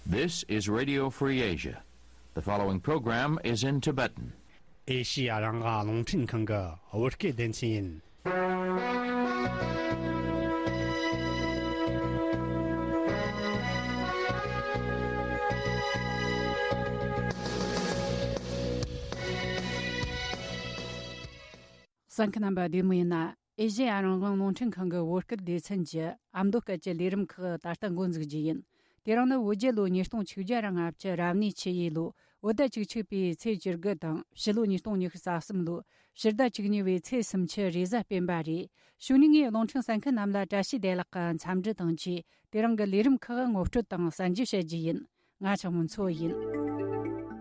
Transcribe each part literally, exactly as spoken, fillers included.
This is Radio Free Asia. The following program is in Tibetan. ཨེ་ཤི་ཡ་རང་དབང་རླུང་འཕྲིན་ཁང་གི་བོད་སྐད་སྡེ་ཚན་ཡིན། གསན་མཁན་རྣམ་པ་བདེ་མོ་ཡིན་ན། ཨེ་ཤེ་ཡ་རང་དབང་རླུང་འཕྲིན་ཁང་གི་བོད་སྐད་སྡེ་ཚན་གྱི་ཨ་མདོ་སྐད་ཀྱི་ལས་རིམ་ཁག་ད་ལྟ་འགོ་འཛུགས་རྒྱུ་ཡིན། དེ་རིང་ནི་བོད་རྒྱལ་ལོ་ཉིས་སྟོང་ཆིག་བརྒྱ་ར་ལྔ་བཅུ་རབ་གནས་ཆུ་ཡོས་ལོ་བོད་ཟླ་བཅུ་གཅིག་པའི་ཚེས་བཅུ་དགུ་དང་ཕྱི་ལོ་ཉིས་སྟོང་ཉི་ཤུ་རྩ་གསུམ་ལོ་ཕྱི་ཟླ་བཅུ་གཉིས་པའི་ཚེས་སུམ་ཅུ་རེས་གཟའ་སྤེན་པ་རེད། གཞུག་ནས་ངས་རླུང་འཕྲིན་གསན་མཁན་རྣམས་ལ་བཀྲ་ཤིས་བདེ་ལེགས་ཀྱི་འཚམས་འདྲི་དང་བཅས། དེ་རིང་གི་ལས་རིམ་ཁག་ངོ་སྤྲོད་དང་གསན་རྒྱུ་བྱེད་རྒྱུ་ཡིན། ང་ཆགས་མོ་མཚོ་ཡིན།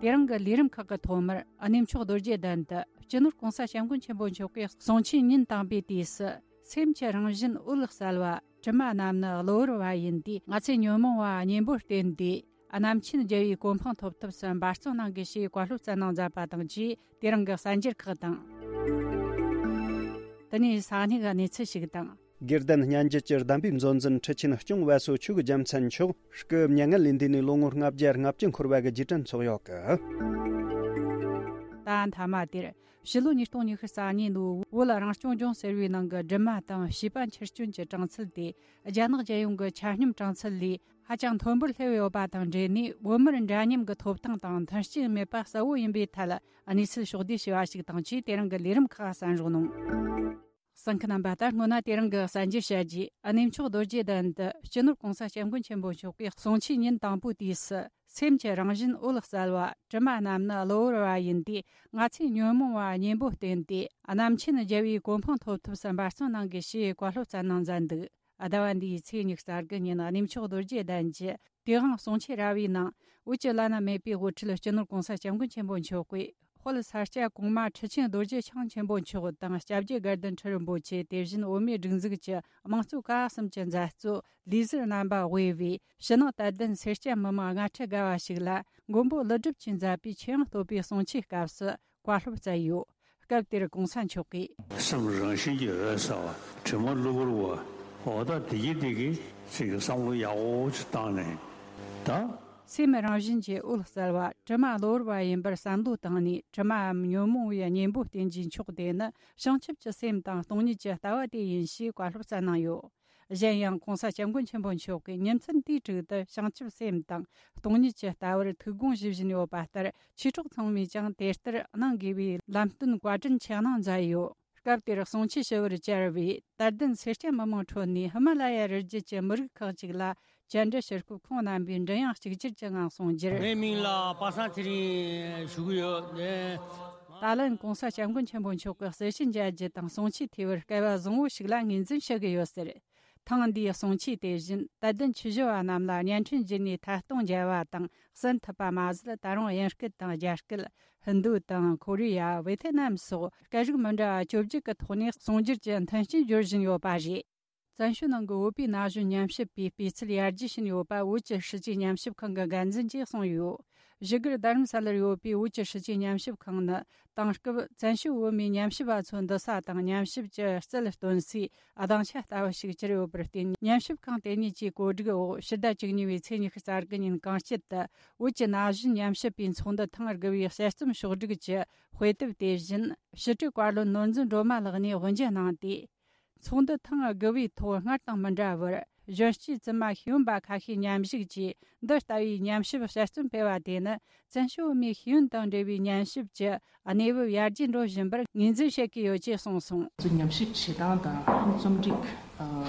དེ་རིང་གི་ལས་རིམ་ཁག་གི་ཐོག་མར་གནས་མཆོག་རྡོ་རྗེ་གདན་དུ་སྤྱི་ནོར་༸གོང་ས་༸སྐྱབས་མགོན་ཆེན་པོ་མཆོག་གིས་གསུང་ཆོས་ཉིན་དང་པོའི་དུས་སུ། སེམས་ཀྱི་རང་བཞིན་འོད་གསལ་བ། དྲི་མ་རྣམས་ནི་གློ་བུར་བ་ཡིན་ཏེ། ང་ཚེ་ཉོན་མོངས་པ་གཉེན་པོར་བརྟེན་ཏེ། རྣམ་མཁྱེན་རྒྱལ་བའི་གོ་འཕང་ཐོབ་ཐབས་སུ་འབད་བརྩོན་གནང་དགོས་ཞེས་བཀའ་སློབ་སྩལ་གནང་མཛད་པ་དང་བཅས། དེ་རིང་གི་གསར་འགྱུར་ཁག་དང་། དེ་ནས་ས་གནས་ཀྱི་གནས་ཚུལ་ཞིག་དང་། དགེ་ལྡན་སྙན་བརྒྱུད་ཀྱི་གདམས་པའི་མཛོད་འཛིན་ཁྲི་ཆེན་སྐྱོང་བ་སོ་ཆོས་རྒྱལ་མཚན་མཆོག་སྐུ་མྱ་ངན་ལས་འདས་ནས་ལོ་ངོ་ལྔ་བརྒྱ་ལྔ་བཅུ་འཁོར་བ་གི་རྗེས་དྲན་ཚོགས་ཡོད་གི། ད་མཐའ་མ་དེར་ཕྱི་ལོ་ཉིས་སྟོང་ཉི་ཤུ་རྩ་གཉིས་ལོའི་བོད་རང་སྐྱོང་ལྗོངས་ཟེར་བའི་ནང་གི་སྒྲོལ་མ་དང་བྱིས་པ་འཆི་སྐྱོན་གྱི་གྲངས་ཚད་དེ། རྒྱ་ནག་རྒྱལ་ཡོངས་ཀྱི་ཆ་སྙོམས་གྲངས་ཚད་ལས་ཧ་ཅང་མཐོན་པོར་སླེབས་ཡོད་པ་དང་འབྲེལ་ནས། བོད་མིར་འདྲ་མཉམ་གྱི་ཐོབ་ཐང་དང་མཐུན་རྐྱེན་མེད་པ་གསལ་བོ་ཡིན་པའི་ཐད་གནས་ཚུལ་ཕྱོགས་བསྡུས་བྱས་པ་ཞིག་དང་བཅས། དེ་རིང་གི་ལས་རིམ་ཁག་གསན་རོགས་གནང་། གསན་མཁན་རྣམ་པ། ད་སྔོན་ན་དེ་རིང་གི་གསར་འགྱུར་བཤད་རྗེས། གནས་མཆོག་རྡོ་རྗེ་གདན་དུ་སྤྱི་ནོར་༸གོང་ས་༸སྐྱབས་མགོན་ཆེན་པོ་མཆོག་གིས་གསུང་ཆོས་ཉིན་དང་པོའི་དུས་སུ། སེམས་ཀྱི་རང་བཞིན་འོད་གསལ་བ། དྲི་མ་རྣམས་ནི་གློ་བུར་བ་ཡིན་ཏེ། ང་ཚེ་ཉོན་མོངས་པ་གཉེན་པོར་བརྟེན་ཏེ། རྣམ་མཁྱེན་རྒྱལ་བའི་གོ་འཕང་ཐོབ་ཐབས་སུ་འབད་བརྩོན་གནང་དགོས་ཞེས་བཀའ་སློབ་སྩལ་གནང་མཛད་འདུག། ཟླ་བ་འདིའི་ཚེས་ཉི་ཤུ་རྩ་དགུ་ཉིན་གནས་མཆོག་རྡོ་རྗེ་གདན་གྱི་དེ་དབང་གསུང་ཆོས་ར་བའི་ནང་། བོད་ཀྱི་བླ་ན་མེད་པའི་དབུ་ཁྲིད་སྤྱི་ནོར་༸གོང་ས་༸སྐྱབས་མགོན་ཆེན་པོ་མཆོག་གིས། དཔལ་ས་སྐྱ་གོང་མ་ཁྲི་ཆེན་རྡོ་རྗེ་འཆང་ཆེན་པོ་མཆོག་དང་། སྐྱབས་རྗེ་དགའ་ལྡན་ཁྲི་རིན་པོ་ཆེ། དེ་བཞིན་བོད་མིའི་སྒྲིག་འཛུགས་ཀྱི་དམངས་གཙོ་ཀ་བ་གསུམ་གྱི་མཛད་གཙོ་ལས་ཟུར་རྣམ་པ་དབུས་པའི་ཕྱི་ནང་དད་ལྡན་སེར་སྐྱ་མི་མང་སྔ་ཕྲད་དགའ་བ་ཞིག་ལ། མགོན་པོ་ཀླུ་སྒྲུབ་ཀྱིས་མཛད་པའི་ཆོས་ཡང་བསྟོད་པའི་གསུང་ཆོས་སྐབས་སུ་བཀའ་སློབ་སྩལ་ཡོད། སྐབས་དེར་གོང་ས་མཆོག་གིས། སེམས་རང་བཞིན་གྱིས་འོད་གསལ་བ། དྲི་མ་གློ་བུར་བ། འོ་ད་དེ་གི་དེ་གི་ཚིག་གི་བསམ་བློ་ཡག་པོ་ཅིག་བཏང་ནས་ད། སེམས་རང་བཞིན་གྱིས་འོད་གསལ་བ། དྲི་མ་གློ་བུར་བ་ཡིན་པར་བསམ་བློ་བཏང་ནས། དྲི་མའམ་ཉོན་མོངས་པའི་གཉེན་པོར་བརྟེན་རྒྱུའི་མཆོག་དེ་ནི་བྱང་ཆུབ་ཀྱི་སེམས་དང་སྟོང་ཉིད་ཀྱི་ལྟ་བ་དེ་ཡིན་ཞེས་བཀའ་སློབ་སྩལ་གནང་ཡོད། གཞན་ཡང་གོང་ས་སྐྱབས་མགོན་ཆེན་པོ་མཆོག་གིས་ཉིན་མཚན་དུས་དྲུག་ཏུ་བྱང་ཆུབ་སེམས་དང་སྟོང་ཉིད་ཀྱི་ལྟ་བར་ཐུགས་དགོངས་ཞུ་བཞིན་ཡོད་པ་ལྟར། ཆོས་གྲོགས་ཚང་མས་ཀྱང་དེ་ལྟར་གནང་དགོས་པའི་ལམ་སྟོན་བཀའ་དྲིན་ཆེ་གནང་མཛད་ཡོད། སྐབས་དེར་གསུང་ཆོས་ཞུ་བར་བཅར་བའི་དད་ལྡན་སེར་སྐྱ་མི་མང་ཁྲོད་ནས་ཧི་མ་ལ་ཡ་རི་རྒྱུད་ཀྱི་མི་རིགས་ཁག་ཅིག་ལ་བཅར་འདྲི་ཞུ་སྐབས། ཁོང་རྣམ་པས་མགྲིན་དབྱངས་གཅིག་གྱུར་གྱི་ངང་གསུང་རྒྱུར། ངའི་མིང་ལ་པ་སངས་ཚེ་རིང་ཞུ་གི་ཡོད། ད་ལན་གོང་ས་སྐྱབས་མགོན་ཆེན་པོ་མཆོག་གི་གསལ་བཤད་མཇལ་རྒྱུ་དང་གསུང་ཆོས་ཐོས་པར་སྐལ་བ་བཟང་བོ་ཞིག་ལ་ངོས་འཛིན་ཞུ་གི་ཡོད་ཟེར། ཐེངས་འདིའི་གསུང་ཆོས་དེ་བཞིན་དད་ལྡན་ཆོས་ཞུ་བ་རྣམས་ལ་བརྙན་འཕྲིན་བརྒྱུད་ནས་ཐད་གཏོང་མཇལ་བ་དང་གསན་ཐུབ་པ་མ་ཟད། ད་རུང་དབྱིན་སྐད་དང་རྒྱ་སྐད། ཧིན་རྡུ་དང་ཁོ་རེ་ཡ། ཝེ་ཐེ་ནམ་སོགས་སྐད་རིགས་མི་འདྲ་བ་བཅོ་བརྒྱད་ཀྱི་ཐོག་ནས་གསུང་སྒྱུར་གྱི་མཐུན་རྐྱེན་སྦྱོར་བཞིན་ཡོད་པ་རེད། བཙན་བྱོལ་ནང་གི་བོད་པའི་ན་གཞོན་ཉམས་ཞིབ་པའི་སྤུས་ཚད་ཡར་རྒྱས་ཕྱིན་ཡོད་པ་བོད་ཀྱི་སྲིད་བྱུས་ཉམས་ཞིབ་ཁང་གི་འགན་འཛིན་གྱིས་གསུངས་ཡོད། བཞུགས་སྒར་རྡ་རམ་ས་ལར་ཡོད་པའི་བོད་ཀྱི་སྲིད་བྱུས་ཉམས་ཞིབ་ཁང་ནི། དེང་སྐབས་བཙན་བྱོལ་བོད་མིའི་ཉམས་ཞིབ་པ་ཚོའི་འདུ་ས་དང་། ཉམས་ཞིབ་ཀྱི་རྩལ་སྟོན་སའི་སྡིངས་ཆ་ལྟ་བུ་ཞིག་གྱུར་ཡོད་པར་བརྟེན། ཉམས་ཞིབ་ཁང་དེ་ཉིད་ཀྱིས་གོ་སྒྲིག་འོག་ཕྱི་ཟླ་བཅུ་གཉིས་པའི་ཚེས་ཉི་ཤུ་རྩ་དགུ་ཉིན་གངས་སྐྱིད་དུ་བོད་ཀྱི་ན་གཞོན་ཉམས་ཞིབ་པའི་ཚོགས་འདུ་ཐེངས་དགུ་པའི་དཔྱད་རྩོམ་ཕྱོགས་བསྒྲིགས་ཀྱི་དཔེ་དེབ་དེ་བཞིན་ཞི་བྲིས་བཀའ་བློན་ནོར་འཛིན་སྒྲོལ་མ་ལགས་ནས་དབུ་འབྱེད་གནང་སྟེ། ཚོགས་འདུ་ཐེངས་དགུ་པའི་ཐོག་སྔར་དང་མི་འདྲ་བར། གཞོན་སྐྱེས་བཙུན་མ་ཤེས་ཡོན་པ་ཁ་ཤས་མཉམ་ཞུགས་ཀྱིས། འདི་ལྟ་བུའི་ཉམས་ཞིབ་དཔྱད་རྩོམ་སྤེལ་བ་དེ་ནི། བཙན་བྱོལ་བོད་མིའི་ཤེས་ཡོན་དང་འབྲེལ་བའི་ཉམས་ཞིབ་ཀྱི་གནས་བབ་ཡར་རྒྱས་འགྲོ་བཞིན་པར་ངོས་འཛིན་བྱེད་ཀྱི་ཡོད་ཅེས་གསུངས་སོང་། ཉམས་ཞིབ་བྱེད་སྟངས་དང་རྩོམ་སྒྲིག་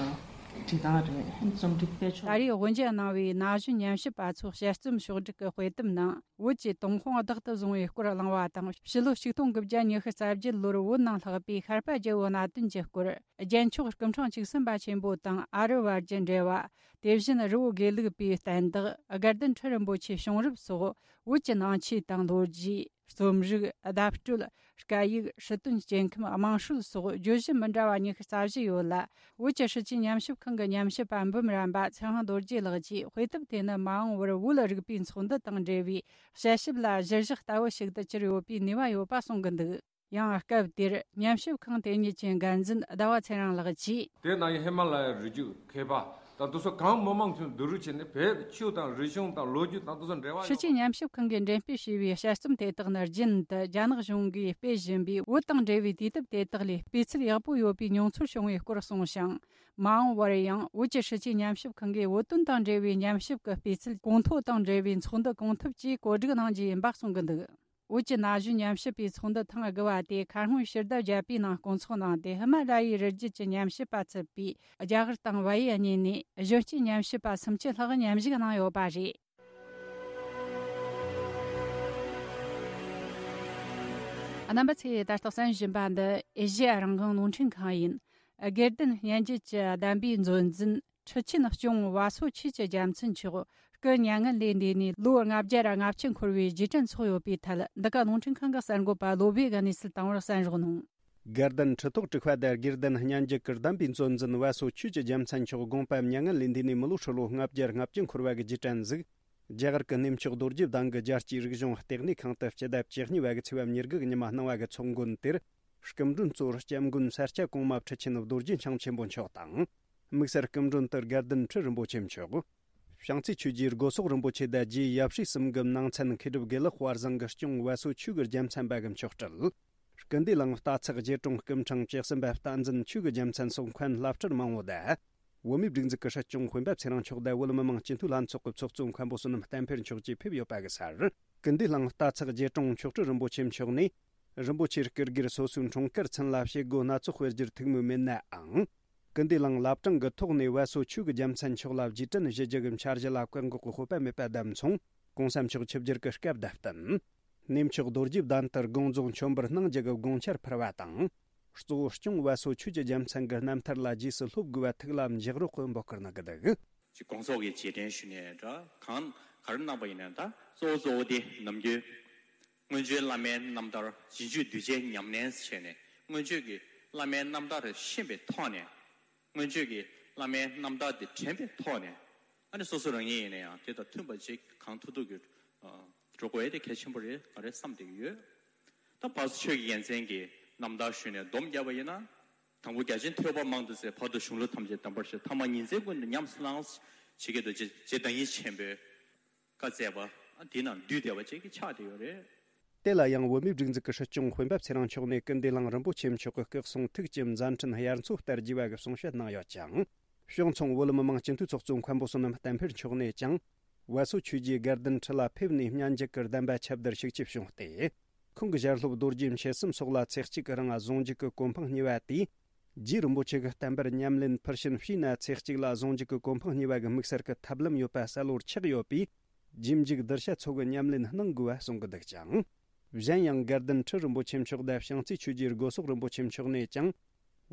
བྱེད་སྟངས་རེད། རྩོམ་སྒྲིག་སྤེལ་ཕྱོགས། ད་རེས་དབུ་འབྱེད་གནང་བའི་ན་གཞོན་ཉམས་ཞིབ་པ་ཚོའི་དཔྱད་རྩོམ་ཕྱོགས་སྒྲིག་གི་དཔེ་དེབ་ནང་། བོད་ཀྱི་ཏུན་ཧོང་བདག་ཏུ་བཟུང་བའི་སྐོར་གླེང་བ་དང་། ཕྱི་ལོ་ཆིག་སྟོང་དགུ་བརྒྱ་ཉི་ཤུ་རྩ་བརྒྱད་ལོར་བོད་ནང་ལྷགས་པའི་ཤར་པ་རྒྱལ་པོའི་གནད་དོན་གྱི་སྐོར། རྒྱལ་མཆོག་སྐུ་ཕྲེང་བཅུ་གསུམ་པ་ཆེན་པོ་དང་ཨ་རི་བར་གྱི་འབྲེལ་བ། དེ་བཞིན་རི་བོ་དགེ་ལུགས་པའི་བསྟན་བདག་དགའ་ལྡན་ཁྲི་རིན་པོ་ཆེ་བྱུང་རབས་སོགས། བོད་ཀྱི་ནང་ཆོས་དང་ལོ་རྒྱུས། རྩོམ་རིག། བརྡ་སྤྲོད། སྐད་ཡིག། སྲིད་དོན། སྐྱེ་ཁམས། དམངས་སྲོལ་སོགས་བརྗོད་གཞི་མི་འདྲ་བ་ཉི་ཤུ་རྩ་བཞི་ཡོད་ལ། བོད་ཀྱི་སྲིད་བྱུས་ཉམས་ཞིབ་ཁང་གི་ཉམས་ཞིབ་པ་འབུམ་རམས་པ་ཚེ་དབང་རྡོ་རྗེ་ལགས་ཀྱིས། དཔེ་དེབ་དེ་ནི་མ་འོངས་པར་བོད་རིག་པའི་ཚོགས་འདུ་དང་འབྲེལ་བའི་དཔྱད་ཞིབ་ལ་གཞིར་བཞག་ལྟ་བུ་ཞིག་ཏུ་གྱུར་ཡོད་པའི་ནུས་པ་ཡོད་པ་གསུང་གི་འདུག། ཡང་སྐབས་དེར་ཉམས་ཞིབ་ཁང་དེ་ཉིད་ཀྱི་འགན་འཛིན་ཟླ་བ་ཚེ་རིང་ལགས་ཀྱིས། དེ་ནང་ཧི་མ་ལ་ཡའི་རི་རྒྱུད་མཁས་པ་ ད་དེ་ཚོ་གང་མི་མང་ཚོས་བསྡུ་རུབ་བྱས་ནས་བོད་ཆོས་དང་རིག་གཞུང་དང་ལོ་རྒྱུས་དང་དེ་ཚོ་འབྲེལ་བ་ཡོད། ཕྱི་རྒྱལ་ཉམས་ཞིབ་ཁང་གིས་འགྲེམས་སྤེལ་བྱས་པའི་དཔྱད་རྩོམ་དེ་དག་ནི་རྒྱུན་དུ་རྒྱ་ནག་གཞུང་གིས་སྤེལ་བཞིན་པའི་བོད་དང་འབྲེལ་བའི་དུས་དེབ་དེ་དག་ལས་སྤུས་ཚད་ཡག་པོ་ཡོད་པའི་མྱོང་ཚོར་བྱུང་བའི་སྐོར་གསུངས་ཤིང་། མ་འོངས་པར་ཡང་བོད་ཀྱི་ཕྱི་རྒྱལ་ཉམས་ཞིབ་ཁང་གིས་བོད་དོན་དང་འབྲེལ་བའི་ཉམས་ཞིབ་ཀྱི་སྤུས་ཚད་གོང་མཐོ་དང་འབྲེལ་བའི་ཚོགས་འདུ་གང་ཐུབ་ཀྱིས་གོ་སྒྲིག་གནང་རྒྱུ་ཡིན་པ་གསུང་གི་འདུག་བོད་ཀྱི་ན་གཞོན་ཉམས་ཞིབ་པའི་ཚོགས་འདུ་ཐེངས་དགུ་བ་དེ་ཁ་སྔོན་ཕྱི་ཟླ་བརྒྱད་པའི་ནང་སྐོང་ཚོགས་གནང་སྟེ། ཧི་མ་ལ་ཡའི་རི་རྒྱུད་ཀྱི་ཉམས་ཞིབ་པ་ཚུད་པའི་རྒྱ་གར་དང་བལ་ཡུལ་གཉིས་ནས་གཞོན་སྐྱེས་ཉམས་ཞིབ་པ་སུམ་ཅུ་ལྷག་མཉམ་ཞུགས་གནང་ཡོད་པ་རེད། རྣམ་པ་ཚོས་ད་ལྟ་གསན་བཞིན་པ་འདི་ཨེ་ཤེ་ཡ་རང་དབང་རླུང་འཕྲིན་ཁང་ཡིན། དགེ་ལྡན་སྙན་བརྒྱུད་ཀྱི་གདམས་པའི་མཛོད་འཛིན་ཁྲི་ཆེན་སྐྱོང་བ་སོ་ཆོས་ཀྱི་རྒྱལ་མཚན་མཆོག་སྐུ་མྱ་ངན་ལས་འདས་ནས་ལོ་ལྔ་བརྒྱ་ར་ལྔ་བཅུ་འཁོར་བའི་རྗེས་དྲན་ཚོགས་ཡོད་པའི་ཐད། འདི་ག་རླུང་འཕྲིན་ཁང་གི་གསར་འགོད་པ་བློ་བྷེ་གིས་གནས་ཚུལ་བཏང་བར་གསན་རོགས་གནང་། དགེ་ལྡན་ཁྲི་ཐོག་དྲུག་པ་དང་དགེ་ལྡན་སྙན་བརྒྱུད་ཀྱི་གདམས་པའི་མཛོད་འཛིན་བ་སོ་ཆོས་ཀྱི་རྒྱལ་མཚན་མཆོག་དགོངས་པ་མྱ་ངན་ལས་འདས་ནས་མི་ལོ་ཧྲིལ་བོ་ལྔ་བརྒྱ་ལྔ་བཅུ་འཁོར་བ་གི་རྗེས་དྲན་གཟིགས། རྒྱ་གར་གྱི་གནས་མཆོག་རྡོ་རྗེ་གདན་གྱི་རྒྱལ་སྤྱིའི་རིག་གཞུང་ལྟེ་གནས་ཁང་དུ་སྤྱི་ཟླ་བཅུ་གཉིས་པ་གི་ཚེས་པ་ཉེར་དགུ་གི་ཉི་མ་གནང་བ་གི་ཚོགས་མགོན་དེར། སྐུ་མགྲོན་གཙོ་བོར་སྐྱབས་མགོན་ས་སྐྱ་གོང་མ་ཁྲི་ཆེན་རྡོ་རྗེ་འཆང་ཆེན་པོ་མཆོག་དང་། དམིགས་བསལ་སྐུ་མགྲོན་དུ་དགེ་ལྡན་ཁྲི་རིན་པོ་ཆེ་མཆོག་བྱང་རྩེ་ཆོས་རྗེ་སྒོ་སོག་རིན་པོ་ཆེ་དང་རྗེ་ཡབ་སྲས་གསུམ་གྱི་ནང་ཚན་མཁས་གྲུབ་དགེ་ལེགས་དཔལ་བཟང་གིས་སྐྱོང་བ་སོ་ཆོས་ཀྱི་རྒྱལ་མཚན་པ་གི་མཆོག་སྤྲུལ། སྐུ་འདུས་གླིང་རྟ་ཚག་རྗེ་དྲུང་སྐུ་ཕྲེང་བཅུ་གསུམ་པ་བསྟན་འཛིན་ཆོས་ཀྱི་རྒྱལ་མཚན་སོགས་མཁན་བླ་སྤྲུལ་མང་བོ་དང་། བོད་མིའི་སྒྲིག་འཛུགས་ཀྱི་སྲིད་སྐྱོང་སྤེན་པ་ཚེ་རིང་མཆོག་དང་བོད་མི་མང་སྤྱི་འཐུས་ལྷན་ཚོགས་ཀྱི་ཚོགས་གཙོ་མཁན་པོ་བསོད་ནམས་བསྟན་འཕེལ་མཆོག་བཅས་ཕེབས་ཡོད་པ་གི་སར། སྐུ་འདུས་གླིང་རྟ་ཚག་རྗེ་དྲུང་མཆོག་སྤྲུལ་རིན་པོ་ཆེ་མཆོག་ནས། རིན་པོ་ཆེའི་སྐུ་སྒེར་སོ་སོའི་འཁྲུངས་སྐར་ཚུན་ལ་བྱེད་སྒོ་སྣ་ཚོགས་སྤེལ་རྒྱུར་ཐུགས་མོས་མེད་ནའང་། སྐུ་འདུས་གླིང་བླ་བྲང་གི་ཐོག་ནས་བ་སོ་ཆོས་ཀྱི་རྒྱལ་མཚན་མཆོག་ལ་རྗེས་དྲན་ཞུ་རྒྱུ་གི་འཆར་གཞི་ལ་བཀག་འགོག་གི་དཔོད་པ་མེད་པ་བསྡད་མཚུངས། གོང་ས་མཆོག་ཆིབས་བསྒྱུར་གྱི་སྐབས་དང་བསྟུན། གནས་མཆོག་རྡོ་རྗེ་གདན་དུ་དགོངས་རྫོགས་མཆོད་འབུལ་གནང་རྒྱུ་གི་དགོངས་འཆར་ཕུལ་བ་དང་། གཙོ་བོ་སྐྱོང་བ་སོ་ཆོས་ཀྱི་རྒྱལ་མཚན་གྱི་རྣམ་ཐར་ལ་རྗེས་སུ་སློབ་དགོས་པ་ཐུགས་ལ་འཇགས་རོགས་ཀྱི་འབོད་སྐུལ་གནང་གི་འདུག་ཅིག་དགོངས་རྫོགས་ཀྱི་རྗེས་དྲན་ཞུས་ནས་འདྲ་གང་ག་རེ་གནང་པ་ཡིན་ན། ད་གཙོ་བོ་གཙོ་བོ་དེ་ནམ་རྒྱུན་སྔོན་བྱོན་བླ་མའི་རྣམ་ཐར་རྗེས་འཇུག་གདུལ་བྱའི་ཉམས་ལེན་བྱས་ནས། སྔོན་བྱོན་གྱི་བླ་མའི་རྣམ་ཐར་ཤེས་པའི་ཐོག་ནས། སྔོན་བྱོན་གྱི་བླ་མའི་རྣམ་ཐར་དེ་དྲན་པའི་ཐོག་ནས། ཨ་ནི་སོ་སོ་རང་ཉིད་ཡིན་ན་ཡང་དེ་དང་མཐུན་པ་ཅིག་གང་ཐུབ་ཐུབ་ཀྱིས་འགྲོ་དགོས་ཡ་དེ་གལ་ཆེན་པོ་རེད་ག་རེ་བསམ་བསྡད་ཀྱི་ཡོད། ད་བར་དུ་ཆོས་ཀྱི་རྒྱལ་མཚན་གྱི་རྣམ་ཐར་ཞུས་ནས་སྡོམ་བརྒྱབ་པ་ཡིན་ན། དང་པོ་རྒྱ་ཆེན་ཐོས་པ་མང་དུ་གསན། བར་དུ་གཞུང་ལུགས་ཐམས་ཅད་གདམས་པར་ཤར། ཐ་མ་ཉིན་མཚན་ཀུན་ཏུ་ཉམས་སུ་བླངས། ཇི་སྐད་དུ་རྗེ་རྗེ་བདག་ཉིད་ཆེན་པོས་བཀའ་སྩལ་པ། དེའི་ནང་འདུས་བསྡད་པ་ཅིག་ཆགས་བསྡད་ཡོད་རེད། དེ་ལ་ཡང་བོད་མིའི་སྒྲིག་འཛུགས་ཀྱི་སྲིད་སྐྱོང་སྤེན་པ་ཚེ་རིང་མཆོག་ནས་སྐུ་འདུས་གླིང་རིན་པོ་ཆེ་མཆོག་གི་སྐུ་གསུང་ཐུགས་ཀྱི་མཛད་འཕྲིན་དབྱར་མཚོ་ལྟར་རྒྱས་པ་གི་གསུང་བཤད་གནང་ཡོད་ཅིང་། གཞུང་ཚང་བོད་མི་མང་སྤྱི་འཐུས་ཚོགས་གཙོ་མཁན་པོ་བསོད་ནམས་བསྟན་འཕེལ་མཆོག་ནས་ཀྱང་། བ་སོ་ཆོས་རྗེ་དགའ་ལྡན་ཁྲི་ལ་ཕེབས་ནས་སྙན་འཇེབས་ཀྱི་གདམས་པ་ཁྱབ་བརྡལ་ཤུགས་ཆེ་བྱུང་སྟེ། ཁོང་གི་ཞལ་སློབ་རྡོ་རྗེ་མཆེད་གསུམ་སོགས་ལ་ཚེ་གཅིག་གི་རིང་གཟུངས་འཇུག་གི་གོ་འཕང་བརྙེས་པ་དེས། རྗེ་རིན་པོ་ཆེ་གི་བསྟན་པར་ཉམས་ལེན་ཕུལ་ཕྱིན་བྱས་ན་ཚེ་གཅིག་ལ་གཟུངས་འཇུག་གི་གོ་འཕང་བརྙེས་པ་གི་དམིགས་བསལ་གྱི་ཐབས་ལམ་ཡོད་པ་གསལ་བོར་ཆགས་ཡོད་པས། རྗེས་འཇུག་གདུལ་བྱ་ཚོ་གི་ཉམས་ལེན་གནང་དགོས་པ་གསུང་གི་འདུག་ཅིང་། གཞན་ཡང་དགའ་ལྡན་ཁྲི་རིན་པོ་ཆེ་མཆོག་དང་བྱང་རྩེ་ཆོས་རྗེ་སྒོ་སོག་རིན་པོ་ཆེ་མཆོག་ནས་ཀྱང་།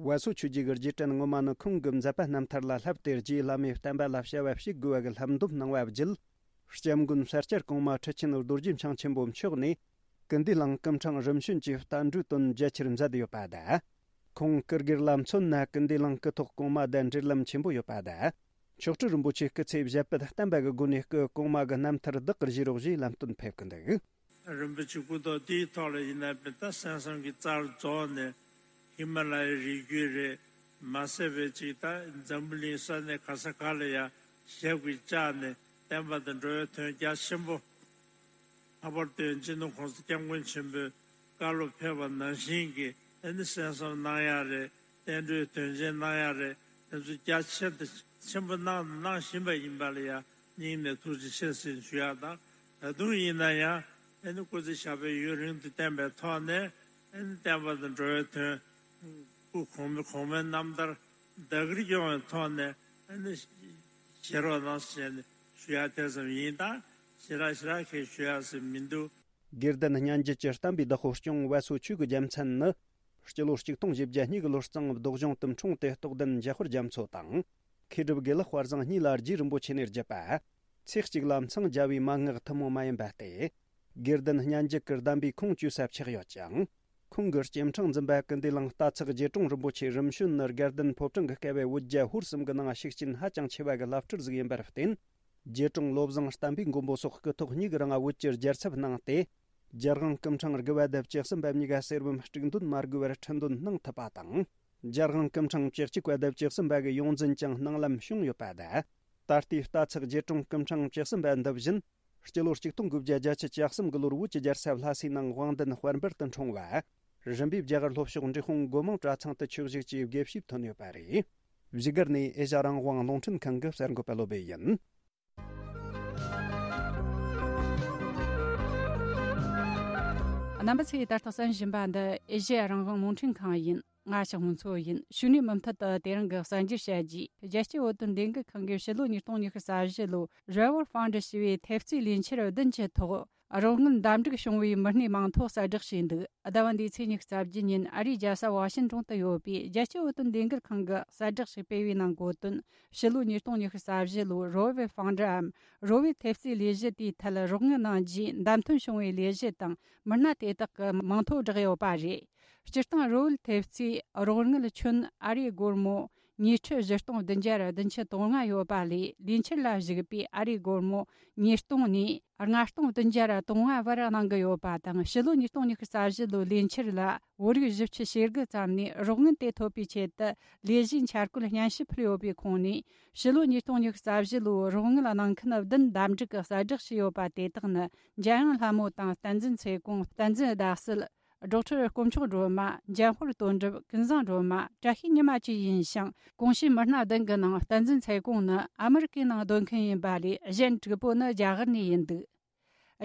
བ་སོ་ཆོས་རྗེ་གི་རྗེས་དྲན་ངོ་མ་ནི་ཁོང་གི་མཛད་པ་རྣམ་ཐར་ལ་བསླབས་ཏེ། རྗེ་བླ་མའི་བསྟན་པ་ལ་བྱ་བ་བྱེད་དགོས་པ་གི་ལྷབ་འདོམས་གནང་བ་བརྒྱུད། སྐྱབས་མགོན་ས་སྐྱ་གོང་མ་ཁྲི་ཆེན་རྡོ་རྗེ་འཆང་ཆེན་པོ་མཆོག་ནས། སྐུ་འདུས་གླིང་སྐུ་ཕྲེང་རིམ་བྱོན་གྱི་བསྟན་འགྲོའི་དོན་རྒྱ་ཆེར་མཛད་ཡོད་པ་དང་། ཁོང་སྐུ་སྒེར་ལ་མཚོན་ན་སྐུ་འདུས་གླིང་སྐུ་ཐོག་གོང་མ་དང་འབྲེལ་ལམ་ཆེན་པོ་ཡོད་པ་དང་། མཆོག་སྤྲུལ་རིན་པོ་ཆེ་སྐུ་ཚེ་ཞབས་པད་བརྟན་པ་གི་སྒོ་ནས་སྐུ་གོང་མ་གི་རྣམ་ཐར་བདག་གིར་བཞེས་རོགས་ཞེས་ལམ་སྟོན་ཕེབས་ཀྱི་འདུག་རིན་པོ་ཆེ་སྐུ་ཐོག་དེའི་ཐོག་ལ་ཡིན་ན་བན་ད་སེམས་བསམ་གྱི་རྩར་རྫོགས་ནས། ཧི་མ་ལ་ཡའི་རི་རྒྱུད་རེད། མ་ཟད་པའི་ཅིག་ད་འཛམ་བུ་གླིང་ས་གནས་ག་ས་ག་ལ་ཡ་ཞབས་ཀྱིས་བཅགས་ནས་བསྟན་པ་དང་འགྲོ་བའི་དོན་རྒྱ་ཆེན་པོ། ལྷག་པར་དུ་སྤྱི་ནོར་༸གོང་ས་༸སྐྱབས་མགོན་ཆེན་པོས་བཀའ་སློབ་ཕེབས་པ་ནང་བཞིན་གྱི་ཨ་ནི་གསན་བསམ་གནང་ཡག་རེད། བསྟན་འགྲོའི་དོན་ཆེན་གནང་ཡག་རེད། དེ་ཚོ་རྒྱ་ཆེ་དང་ཆེན་པོ་གནང་དང་གནང་བཞིན་པ་ཡིན་པ་ལ་ཡང་སྙིང་ནས་ཐུགས་རྗེ་ཆེ་ཟེར་ཞུ་ཡག་དང་། ད་དུང་ཡིན་ན་ཡང་ཨ་ནི་སྐུ་ཚེ་ཞབས་པད་ཡུན་རིང་དུ་བརྟན་པའི་ཐོག་ནས་ཨ་ནི་བསྟན་པ་དང་འགྲོ་བའི་དོན་སྐུ་གོང་མའི་གོང་མའི་རྣམ་ཐར་བདག་གིར་སྐྱོང་བའི་ཐོག་ནས་ཨ་ནི་བཞེས་རོགས་གནང་ཟེར་ནས་ཞུ་ཡག་དེ་ཙམ་ཡིན། ད་ཞེ་དྲག་ཞེ་དྲག་གི་ཞུ་ཡག་ཟེར་མི་འདུག་དགེ་ལྡན་སྙན་བརྒྱུད་ཀྱི་བསྟན་པའི་བདག་པོ་སྐྱོང་བ་སོ་ཆོས་ཀྱི་རྒྱལ་མཚན་ནི། སྤྱི་ལོ་གཅིག་སྟོང་བཞི་བརྒྱ་གཉིས་ཀྱི་ལོ་གཙང་བདག་གཞུང་དུ་འཁྲུངས་ཏེ་རྟོགས་ལྡན་འཇམ་དཔལ་རྒྱ་མཚོ་དང་། མཁས་གྲུབ་དགེ་ལེགས་དཔལ་བཟང་གཉིས་ལ་རྗེ་རིན་པོ་ཆེ་ནས་བརྒྱུད་པ། ཚེ་གཅིག་ལ་མཚང་རྒྱ་བའི་མན་ངག་ཐུན་མོང་མ་ཡིན་པ་སྟེ། དགེ་ལྡན་སྙན་བརྒྱུད་ཀྱི་གདམས་པའི་ཁུངས་བཅོལ་ས་ཆགས་ཡོད་ཅིང་། ཁོང་གི་སྐྱེ་ཕྲེང་འཛིན་པ་ཀུན་བདེ་གླིང་རྟ་ཚག་རྗེ་དྲུང་རིན་པོ་ཆེ་རིམ་བྱོན་ནི་དགའ་ལྡན་ཕོ་བྲང་གི་བསྐལ་པའི་བོད་རྒྱ་ཧོར་གསུམ་གྱི་ནང་ཤུགས་རྐྱེན་ཧ་ཅང་ཆེ་བ་གི་བླ་སྤྲུལ་ཟིག་ཡིན་པར་བརྟེན། རྗེ་དྲུང་བློ་བཟང་བསྟན་པའི་མགོན་པོ་སོགས་སྐུ་ཐོག་གཉིས་ཀྱི་རིང་བོད་ཀྱི་རྒྱལ་ཚབ་གནང་སྟེ། རྒྱལ་དབང་སྐུ་ཕྲེང་དགུ་པ་དང་བཅུ་གསུམ་པ་གཉིས་ཀ་གསེར་བུམ་དཀྲུག་འདོན་མ་དགོས་པར་ཁྲི་འདོན་གནང་ཐུབ་པ་དང་། རྒྱལ་དབང་སྐུ་ཕྲེང་བཅུ་གཅིག་པ་དང་བཅུ་གསུམ་པ་གི་ཡོངས་འཛིན་ཀྱང་སྣང་ལམ་བྱུང་ཡོད་པ་དང་། ད་ལྟའི་རྟ་ཚག་རྗེ་དྲུང་སྐུ་ཕྲེང་བཅུ་གསུམ་པ་འདི་བཞིན་སྤྱི་ལོ་གཅིག་སྟོང་དགུ་བརྒྱ་བརྒྱད་ཅུ་གྱ་གསུམ་གྱི་ལོར་བོད་ཀྱི་རྒྱལ་ས་ལྷ་སའི་ནང་དབང་ལྡན་དཔལ་འབར་དུ་འཁྲུངས་པ། རིམ་པས་རྒྱ་གར་ལྷོ་ཕྱོགས་འབྲས་སྤུངས་སྒོ་མང་གྲྭ་ཚང་དུ་ཆོས་ཞུགས་ཀྱིས་དགེ་བཤེས་ཐོན་ཡོད་པ་རེད། བཞུགས་སྒར་ནས་ཨེ་ཤ་རང་དབང་རླུང་འཕྲིན་ཁང་གི་གསར་འགོད་པ་བློ་བྷེ་ཡིན། རྣམ་པ་ཚོས་ད་ལྟ་གསན་བཞིན་པ་འདི་ཨེ་ཤ་རང་དབང་རླུང་འཕྲིན་ཁང་ཡིན། ང་ཞག་ཧུང་མཚོ་ཡིན། ཞུ་ནས་མུ་མཐུད་དུ་དེ་རིང་གི་གསར་འགྱུར་བཤད་རྒྱུ། རྒྱལ་སྤྱིའི་བོད་དོན་ལས་འགུལ་ཁང་གིས་ཕྱི་ལོ་ཉིས་སྟོང་ཉི་ཤུ་རྩ་བཞི་ལོའི་Revolve Fund ཞེས་པའི་ཐེབས་རྩའི་ལས་འཆར་བདུན་གྱི་ཐོག་རོགས་དངུལ་འདམ་འགྲིག་བྱུང་བའི་མི་སྣའི་མིང་ཐོ་གསལ་བསྒྲགས་བྱས་འདུག་ཟླ་བ་འདིའི་ཚེས་ཉི་ཤུ་རྩ་བརྒྱད་ཉིན་ཨ་རིའི་རྒྱལ་ས་ཝ་ཤིན་ཏོན་དུ་ཡོད་པའི་རྒྱལ་སྤྱིའི་བོད་དོན་ལས་འགུལ་ཁང་གིས་གསལ་བསྒྲགས་ཤིག་སྤེལ་བའི་ནང་འགོད་དོན། ཕྱི་ལོ་ཉིས་སྟོང་ཉི་ཤུ་རྩ་བཞི་ལོའི་Revolve Fund འམ་Revolve ཐེབས་རྩའི་ལས་གཞི་དེའི་ཐད་རོགས་དངུལ་གནང་རྒྱུའི་བདམས་ཐོན་བྱུང་བའི་ལས་གཞི་དང་མི་སྣ་དེ་དག་གི་མིང་ཐོ་བསྒྲགས་ཡོད་པ་རེད། སྤྱིར་བཏང་Revolve ཐེབས་རྩའི་རོགས་དངུལ་ཁྱོན་ཨ་རིའི་སྒོར་མོ་ཉིས་ཁྲི་བཞི་སྟོང་བདུན་བརྒྱ་བདུན་ཅུ་དོན་ལྔ་ཡོད་པ་ལས། ལས་འཆར་ལ་གཞིགས་པའི་ཨ་རིའི་སྒོར་མོ་ཉིས་སྟོང་ནས་ལྔ་སྟོང་བདུན་བརྒྱ་དོན་ལྔ་བར་གནང་གི་ཡོད་པ་དང་། ཕྱི་ལོ་ཉིས་སྟོང་ཉི་ཤུ་རྩ་བཞི་ལོའི་ལས་འཆར་ལ་བོད་རིགས་བཞི་བཅུ་ཞེ་དགུ་ཙམ་ནས་རོགས་དངུལ་དེ་ཐོབ་པའི་ཆེད་དུ་ལས་གཞིའི་འཆར་བཀོད་སྙན་ཞུ་ཕུལ་ཡོད་པའི་ཁོངས་ནས། ཕྱི་ལོ་ཉིས་སྟོང་ཉི་ཤུ་རྩ་བཞི་ལོའི་རོགས་དངུལ་གནང་མཁན་བདུན་འདེམས་སྒྲུག་གི་གསལ་བསྒྲགས་བྱས་ཡོད་པ་དེ་དག་ནི། འཇམ་དབྱངས་ལྷ་མོ་དང་བསྟན་འཛིན་ཚེ་གོང་། བསྟན་འཛིན་ཟླ་གསལ། སྒྲོག་ཁྲི་དཀོན་མཆོག་སྒྲོལ་མ། འཇམ་དཔལ་དོན་གྲུབ། ཀུན་བཟང་སྒྲོལ་མ། བཀྲ་ཤིས་ཉི་མ་བཅས་ཡིན་ཞིང་། གོང་ཞུས་མི་སྣ་བདུན་གྱི་ནང་བསྟན་འཛིན་ཚེ་གོང་ནི་ཨ་མི་རི་ཀའི་ནང་སྡོད་མཁན་ཡིན་པ་ལས། གཞན་དྲུག་པོ་ནི་རྒྱ་གར་ནས་ཡིན་འདུག་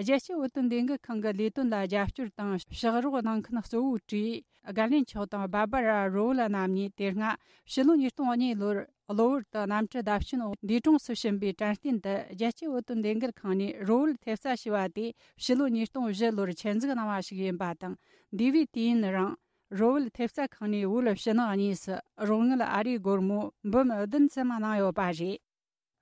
རྒྱལ་སྤྱིའི་བོད་དོན་ལས་འགུལ་ཁང་གི་ལས་དོན་ལ་རྒྱབ་སྐྱོར་དང་ཕྱག་རོགས་གནང་མཁན་གཙོ་བོའི་གྲས་རྒན་གླེན་མཆོག་དང་སྦ་སྦ་ར་རོ་ལ་རྣམ་གཉིས་དེ་སྔ་ཕྱི་ལོ་ཉིས་སྟོང་གཉིས་ལོར་གློ་བུར་དུ་གནམ་གྲུ་བརྡབ་སྐྱོན་འོག་འདས་གྲོངས་སུ་ཕྱིན་པའི་དྲན་རྟེན་དུ། རྒྱལ་སྤྱིའི་བོད་དོན་ལས་འགུལ་ཁང་ནས་རོ་བོད་ཐེབས་རྩ་ཞེས་པ་དེ་ཕྱི་ལོ་ཉིས་སྟོང་བཞི་ལོར་ཆེད་འཛུགས་གནང་བ་ཞིག་ཡིན་པ་དང་། འདས་པའི་དུས་ཡུན་རིང་རོ་བོད་ཐེབས་རྩ་ཁང་ནས་བོད་ཕྱི་ནང་གཉིས་སུ་རོགས་དངུལ་ཨ་རིའི་སྒོར་མོ་འབུམ་བདུན་ཙམ་གནང་ཡོད་པ་རེད།